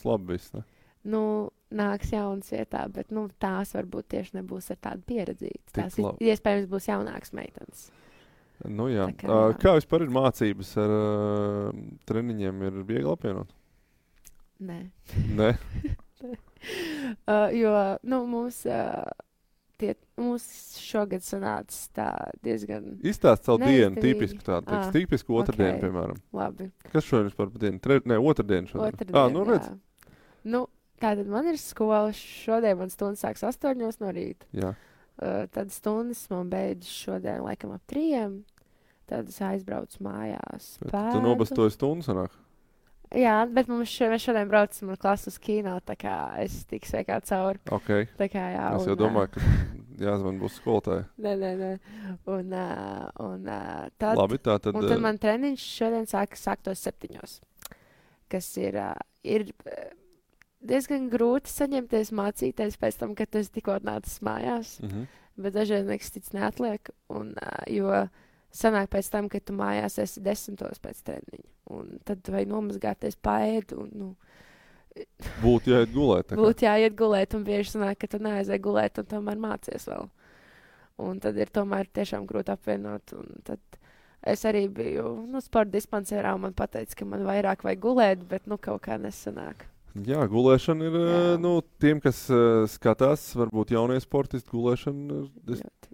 labi viss, ne? Nāks jaunas vietā, bet tās varbūt tieši nebūs ar tādu pieredzīti. Tās iespējams būs jaunākas meitenes. Jā. Kā vispār ir mācības ar treniņiem? Ir viegli apvienot? Nē. Jo mums Mums šogad sanāca tā diezgan Izstāst savu dienu, neizdevīgi. tipisku tādu, tipisku otrdienu, piemēram. Labi. Kas šodien vispār par dienu? Otrdienu šodien. Otrdien, Nu redz. Nu, tātad man ir skola. Šodien man stundas sāks 8 no rīta. Jā. Tad stundas man beidzas šodien laikam ap 3. Tad es aizbraucu mājās. Tu nobastoji stundu sanāk? Jā, bet mēs šodien braucam ar klasu uz kino, tā kā es tiku sveikā cauri. Ok. Tā kā jā. Es jau domāju, ka jāzvan būs skolotāji. Nē. Tad, Labi, tā tad... un tad man treniņš šodien sāktos 7. Kas ir diezgan grūti saņemties mācīties pēc tam, kad es tikko atnācis mājās. Bet dažreiz nekas cits neatliek. Jo sanāk pēc tam, kad tu mājās esi 10. pēc treniņa. Un tad tu vajag nomazgāties paēd. Būtu jāiet gulēt. Būtu jāiet gulēt, un bieži sanāk, ka tu neaizēji gulēt, un tomēr mācies vēl. Un tad ir tomēr tiešām grūti apvienot. Un tad es arī biju sporta dispanserā, un man pateica, ka man vairāk vajag gulēt, bet kaut kā nesanāk. Jā, gulēšana ir, tiem, kas skatās, varbūt jaunie sportisti, gulēšana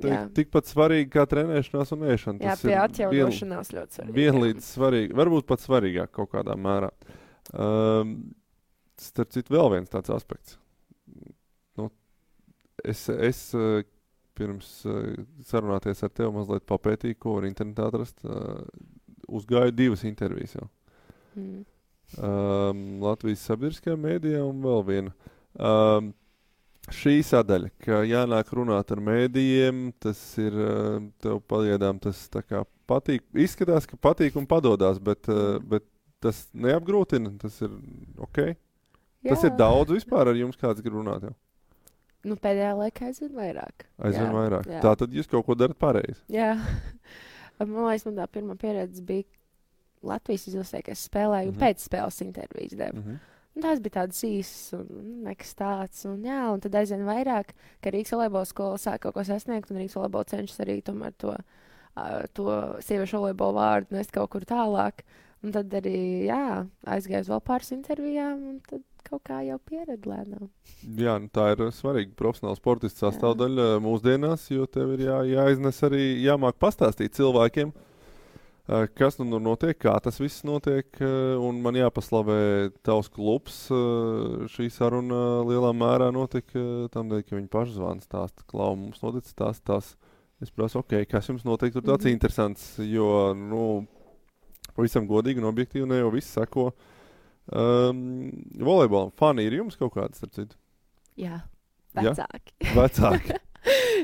ir tikpat svarīga kā trenēšanās un ēšana. Jā, pie atjaunošanās ļoti svarīga. Vienlīdz svarīga, varbūt pat svarīgāk kaut kādā mērā. Starp citu, vēl viens tāds aspekts. Es pirms sarunāties ar tevi mazliet papētīju, ko var internetā atrast. Uzgāju 2 intervijas jau. Latvijas sabiedriskajā mēdījā un vēl viena. Šī sadaļa, ka jānāk runāt ar mēdījiem, tas ir tev pagaidām tas tā kā patīk. Izskatās, ka patīk un padodās, bet tas neapgrūtina, tas ir ok. Jā. Tas ir daudz vispār ar jums, kāds grib runāt jau. Pēdējā laikā aizvien vairāk. Vairāk. Tā tad jūs kaut ko darat pareizi. Jā. Man liekas, man tā pirmā pieredze bija Latvijas izlasē, ka es spēlēju pēc spēles intervijas devu. Tās bija tādas īsas un nekas tāds. Un tad aizvien vairāk, ka Rīgas volejbola skola sāk kaut ko sasniegt, un Rīgas volejbola cenšas arī tomēr to sieviešu volejbola vārdu nest kaut kur tālāk. Un tad arī, aizgāju uz vēl pāris intervijām, un tad kaut kā jau pieredzi lēnām. Jā, tā ir svarīga profesionāla sportista sastāvdaļa mūsdienās, jo tev ir jāiznes arī, jāmāk pastāstīt cilvēkiem, kas nu notiek, kā tas viss notiek, un man jāpaslavē tavs klubs. Šī saruna lielā mērā notika tādēļ, ka viņi paši zvana stāsta, Klau, mums noticis tās. Es prasu, ok, kas jums notiek, tur tāds interesants, jo, pavisam godīgi un objektīvi ne jau viss seko. Volejbolam fani ir jums kaut kāds, starp citu? Jā, vecāki. Ja? Vecāki.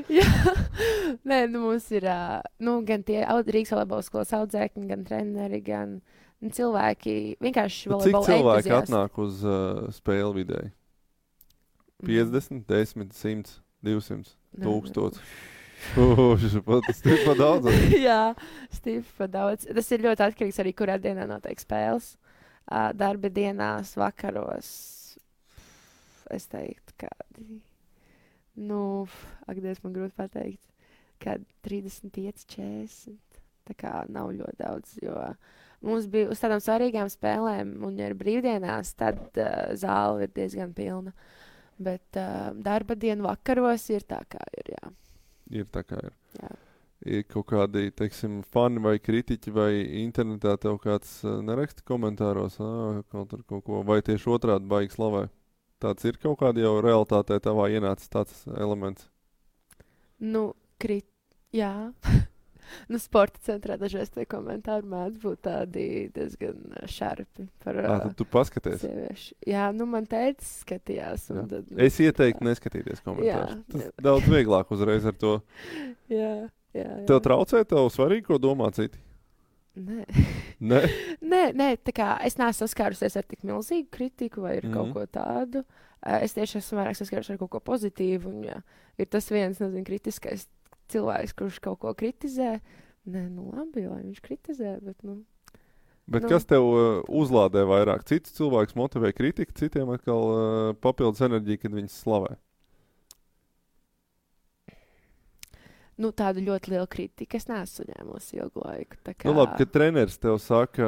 Jā, nē, mums ir gan tie Rīgas volejbola skolas audzēkņi, gan treneri, gan cilvēki, vienkārši volejbola entuziasti. Cik cilvēki entuziasti atnāk uz spēli vidēji? 50, 10, 100, 200, 1000? Stipri pa daudz. Jā, stipri pa daudz. Tas ir ļoti atkarīgs arī, kurā dienā notiek spēles. Darba dienās, vakaros, es teiktu, kādi... Dievs, man grūti pateikt, ka 35, 40. Tā kā nav ļoti daudz, jo mums bija uz tādām svarīgām spēlēm, un ja ir brīvdienās, tad zāle ir diezgan pilna. Bet darba dienu vakaros ir tā, kā ir, jā. Ir tā, kā ir. Jā. Ir kaut kādi, teiksim, fani vai kritiķi vai internetā tev kāds neraksta komentāros, kaut ko, vai tieši otrādi baigi slavē? Tāds ir kaut kāda jau realitātē tavā ienācis tāds elements? Jā. Sporta centrā dažreiz tie komentāri mēdz būt tādi diezgan šarpi par tad tu paskaties? Sieviešu. Jā, man teica skatījās. Un tad, es ieteiktu neskatīties komentārus. Tas daudz vieglāk uzreiz ar to. Jā. Tev traucē, tev svarīgi, ko domā citi? Nē, tā kā es neesmu saskārusies ar tik milzīgu kritiku vai kaut ko tādu. Es tieši esmu vairāk saskārusies ar kaut ko pozitīvu. Un, ja ir tas viens, kritiskais cilvēks, kurš kaut ko kritizē. Nē, labi, lai viņš kritizē, bet, Bet kas tev uzlādē vairāk? Cits cilvēks motivē kritiku, citiem atkal papildus enerģiju, kad viņas slavē? Tādu ļoti lielu kritiku es neesmu ņēmusi ilgu laiku. Labi, kad treneris tev saka,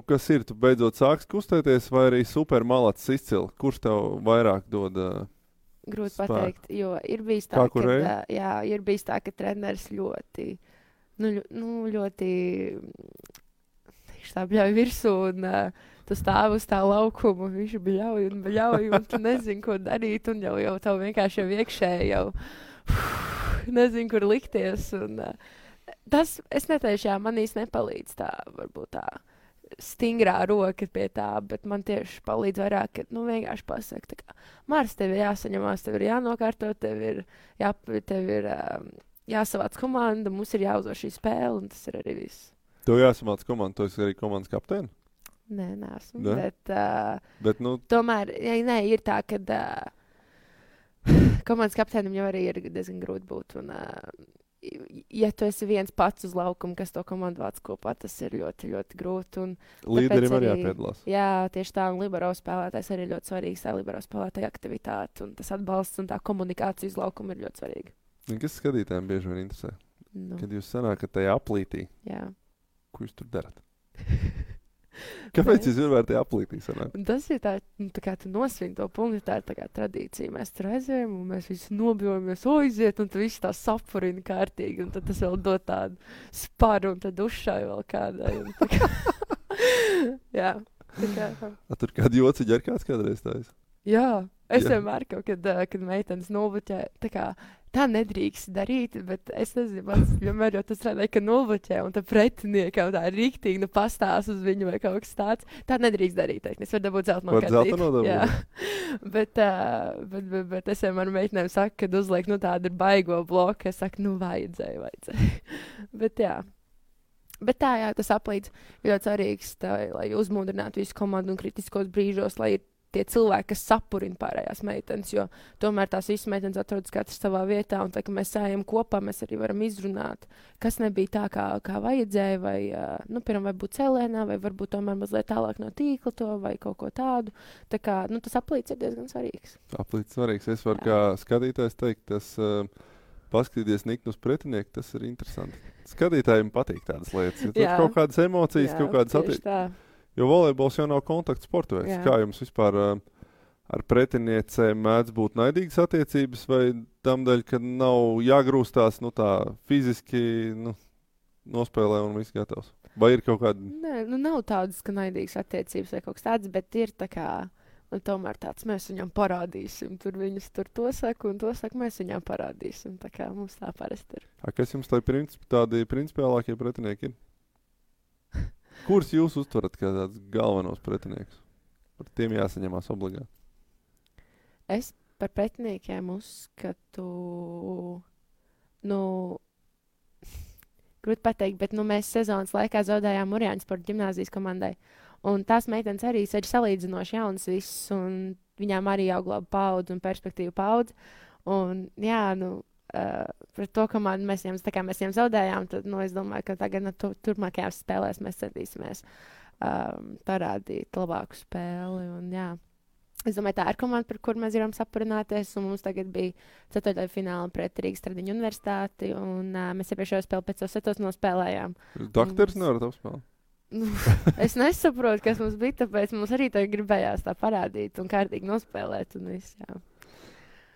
kas ir, tu beidzot sāks kustēties, vai arī super malacis izcili? Kurš tev vairāk dod grūti spēku. pateikt, jo ir bijis tā, Kā ka, kurēji? ir bijis tā, ka treneris ļoti, ļoti viņš tā bļauj virsū un tu stāv uz tā laukuma, viņš bļauj, un tu nezini, ko darīt, un jau tev vienkārši jau iekšēji jau nezinu, kur likties, un tas, es neteikšu, jā, man īsti nepalīdz tā, varbūt tā stingrā roka pie tā, bet man tieši palīdz vairāk, ka, vienkārši pasaka, tā kā, Mārs, tev ir jāsaņemās, tev ir jānokārto, tev ir jāsavāc komanda, mums ir jāuzvar šī spēle, un tas ir arī viss. Tev jāsamāc komanda, tu esi arī komandas kapteini? Nē, neesmu, Ne? Bet, tomēr, ir tā, ka komandas kapteinim jau arī ir diezgan grūti būt, un ja tu esi viens pats uz laukuma, kas to komandu vāc kopā, tas ir ļoti, ļoti grūti. Un līderim tāpēc arī jāpiedalās. Jā, tieši tā, un libero spēlētājs arī ļoti svarīgs, tā libero spēlētāja aktivitāte, un tas atbalsts un tā komunikācija uz laukuma ir ļoti svarīga. Kas skatītājiem bieži vien interesē? Kad jūs sanākat tajā aplītī, Jā. ko jūs tur darat? Kāpēc jūs vienmēr tajā aplītī sanāk? Un tas ir tā kā tu nosvin to punktu, tā ir tā kā tradīcija. Mēs tur aizējam, un mēs visi nobjojamies, aiziet, un tu visi tā sapurina kārtīgi, un tad tas vēl dod tādu sparu, un tad dušai vēl kādai. Tā kā jā. Tā kā. Tur kādi jociņi ar kāds kādreiz tājas? Jā. Es Jā. vienmēr kaut kad meitenes nulbuķē, tā nedrīkst darīt, bet es nezinu, man vienmēr jau tas redzēja, ka nulbuķē, un tā pretiniekam tā rīktīgi pastās uz viņu vai kaut kas tāds. Tā nedrīkst darīt, es varu dabūt zelta Var zelta nodabūt? Jā. bet es vienmēr meitenēm saku, kad uzliek, tāda ir baigo bloka, es saku, vajadzēja. Bet jā. Bet tā, jā, tas aplīdz ļoti svarīgs, lai uzmundrinātu visu komandu un kritiskos brīžos, lai ir tie cilvēki, kas sapurina pārējās meitenes, jo tomēr tās visas meitenes atrodas katrs savā vietā, un tā, ka mēs sējam kopā, mēs arī varam izrunāt, kas nebija tā, kā vajadzēja, vai, piemēram, vai būt cēlēnā, vai varbūt tomēr mazliet tālāk no tīkla to, vai kaut ko tādu. Tā kā, tas aplīds ir diezgan svarīgs. Aplīds svarīgs. Es varu kā skatītājs teikt, tas paskatīties niknu uz pretinieku, tas ir interesanti. Skatītājiem patīk tādas lietas. Ja tur kaut kādas emocijas, kaut kādas attiecības. Jo volejbols jau nav kontakta sporta veids. Kā jums vispār ar pretiniecēm mēdz būt naidīgas attiecības, vai tam dēļ, ka nav jāgrūstās tā fiziski nospēlē un viss gatavs? Vai ir kaut kāda? Nē, nav tādas, ka naidīgas attiecības vai kaut kas tāds, bet ir tā kā, tomēr tāds, mēs viņam parādīsim. Tur viņas to saka, un to saka, mēs viņam parādīsim. Tā kā mums tā parasti ir. Kas jums tādi principiālākie pretinieki ir? Kurus jūs uztverat kā tādus galvenos pretiniekus? Par tiem jāsaņemās obligāti. Es par pretiniekiem uzskatu, grūti pateikt, bet mēs sezonas laikā zaudējām Mūrjāņu sporta ģimnāzijas komandai. Un tās meitenes arī ir salīdzinoši jaunas visas, un viņām arī jau glāba paudze un perspektīva paudze. Un jā, par to komandu mēs viņiem zaudējām, tad es domāju, ka tagad turpmākajās spēlēs mēs centīsimies parādīt labāku spēli. Un, jā. Es domāju, tā ir komanda, par kuru mēs varam sapurināties, un mums tagad bija ceturtajā fināla pret Rīgas Tradiņu universitāti, un mēs iepriekšējo spēli pēc setos nospēlējām. Dakteris nevarat apspēlēt? Es nesaprotu, kas mums bija, tāpēc mums arī tagad gribējās tā parādīt un kārtīgi nospēlēt un viss, jā.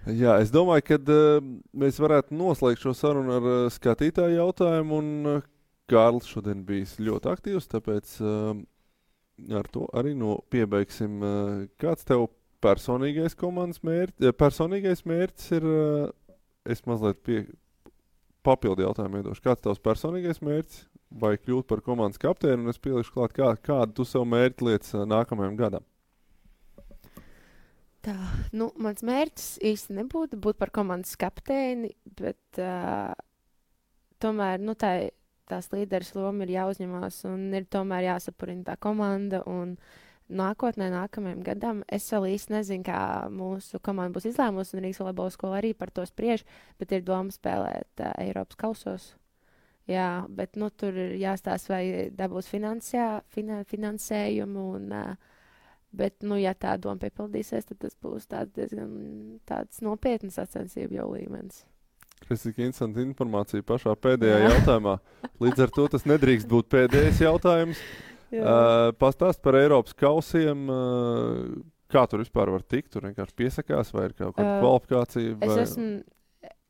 Jā, es domāju, ka mēs varētu noslēgt šo sarunu ar skatītāju jautājumu, un Kārlis šodien bijis ļoti aktīvs, tāpēc ar to arī piebeigsim. Kāds tev personīgais komandas personīgais mērķis ir, es mazliet papildu jautājumu iedošu, kāds tavs personīgais mērķis, vai kļūt par komandas kapteini, un es pielikšu klāt, kādu tu sev mērķi lietas nākamajam gadam? Tā, mans mērķis īsti nebūtu būt par komandas kapteini, bet tomēr, tās līderes loma ir jāuzņemās un ir tomēr jāsapurina tā komanda, un nākamajam gadam es vēl īsti nezinu, kā mūsu komanda būs izlēmusi, un Rīgas volejbola skola arī par to spriež, bet ir doma spēlēt Eiropas kausos. Jā, bet tur ir jāstāsta, vai dabūs finansējumu, un bet, ja tā doma piepildīsies, tad tas būs tāds nopietnas sacensību jau līmenis. Tas ir interesanti informācija pašā pēdējā jautājumā. Līdz ar to tas nedrīkst būt pēdējais jautājums. Pastāst par Eiropas kausiem. Kā tur vispār var tikt? Tur vienkārši piesakās vai ir kaut kāda kvalifikācija?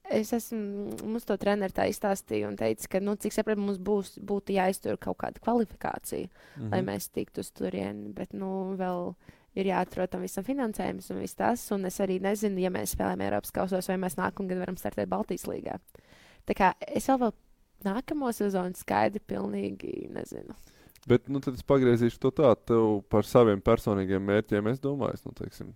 Mums to treneri tā izstāstīja un teica, ka, cik sapratu, mums būtu jāiztur kaut kāda kvalifikācija, lai mēs tiktu uz turieni, bet, vēl ir jāatrod tam visam finansējums un viss tas, un es arī nezinu, ja mēs spēlējam Eiropas kausos, vai mēs nākamgad varam startēt Baltijas līgā. Tā kā es vēl nākamo sezonu skaidri pilnīgi nezinu. Bet, tad es pagriezīšu to tā, tev par saviem personīgiem mērķiem, es domāju, teiksim,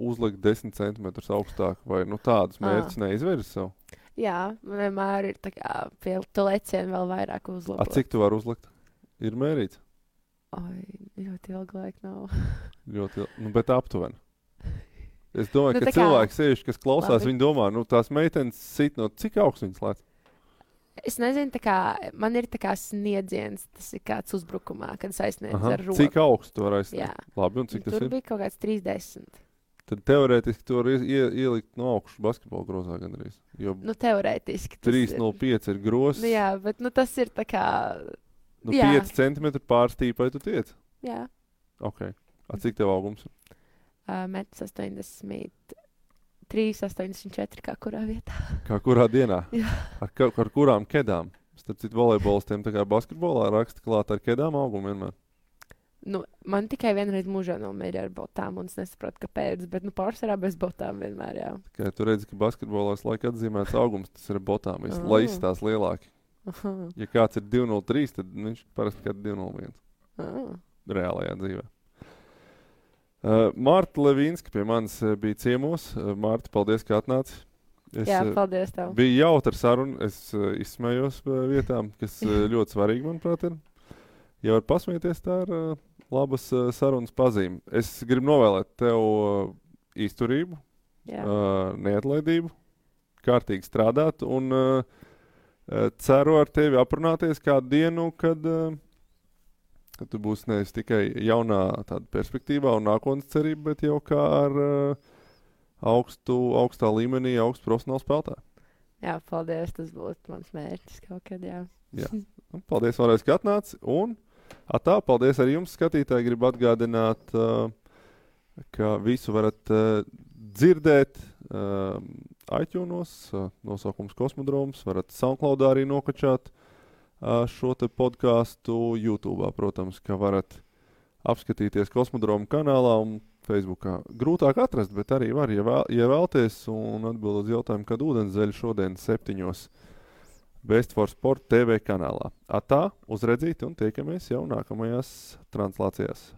uzlikt 10 centimetrus augstāk, vai tādus mērķus neizvirzi sev? Jā, vienmēr ir tā kā pie tu lecienu vēl vairāk uzlabot. Cik tu vari uzlikt? Ir mērīts? Ļoti ilgi laika nav. Ļoti ilgi, bet aptuveni. Es domāju, ka cilvēki sevišķi, kas klausās, viņi domā, tās meitenes sit cik augsts viņas lēc? Es nezinu, man ir sniedziens, tas ir kāds uzbrukumā, kad es aizsniedzu ar roku. Cik augstu tu vari aizsniegt? Jā. Labi, un cik tas ir? Tur bija kaut kāds 30. Tad teorētiski tu vari ielikt no augšu basketbola grozā gandrīz. Jo teorētiski. 3,05 ir grozs. Jā, bet tas ir tā kā... 5 centimetri pārstīpai tu tiec? Jā. Ok. Cik tev augums ir? 1,83, 84 kā kurā vietā. Kā kurā dienā? Jā. Ar kurām kedām? Starp citu volejbolistiem tā kā basketbolā raksta klāt ar kedām augumu vienmēr. Man tikai vienreiz mūžā nomēra ar botām, un es nesaprotu, kāpēc, bet pārsvarā bez botām vienmēr, jā. Kā tu redzi, ka basketbolā laika atzīmēts augums, tas ir ar botām, lai izstās lielāki. Ja kāds ir 2,03, tad viņš parasti kā 2,01. Reālajā dzīvē. Marta Levīnska pie manis bija ciemos. Marta, paldies, ka atnāci. Jā, paldies tev. Bija jautra saruna. Es izsmējos vietām, kas ļoti svarīgi, manuprāt, ir. Ja var pasmieties, tā ir labas sarunas pazīme. Es gribu novēlēt tev izturību, neatlaidību, kārtīgi strādāt un ceru ar tevi aprunāties kādu dienu, kad tu būsi nevis tikai jaunā tāda perspektīvā un nākotnes cerība, bet jau kā ar augstā līmenī, augstu profesionālu spēlētāju. Jā, paldies, tas būtu mans mērķis kaut kad, jā. Paldies vēlreiz, ka atnāci, un paldies arī jums, skatītāji. Gribu atgādināt, ka visu varat dzirdēt iTunes, nosaukums Kosmodroms, varat SoundCloudā arī nokačāt šo te podcastu YouTube'ā, protams, ka varat apskatīties Kosmodroma kanālā un Facebookā. Grūtāk atrast, bet arī var, ja vēlties un atbild uz jautājumu, kad ūdenszeļi šodien 7:00 Best for Sport TV kanālā. Uz redzīti un tiekamies jau nākamajās translācijās.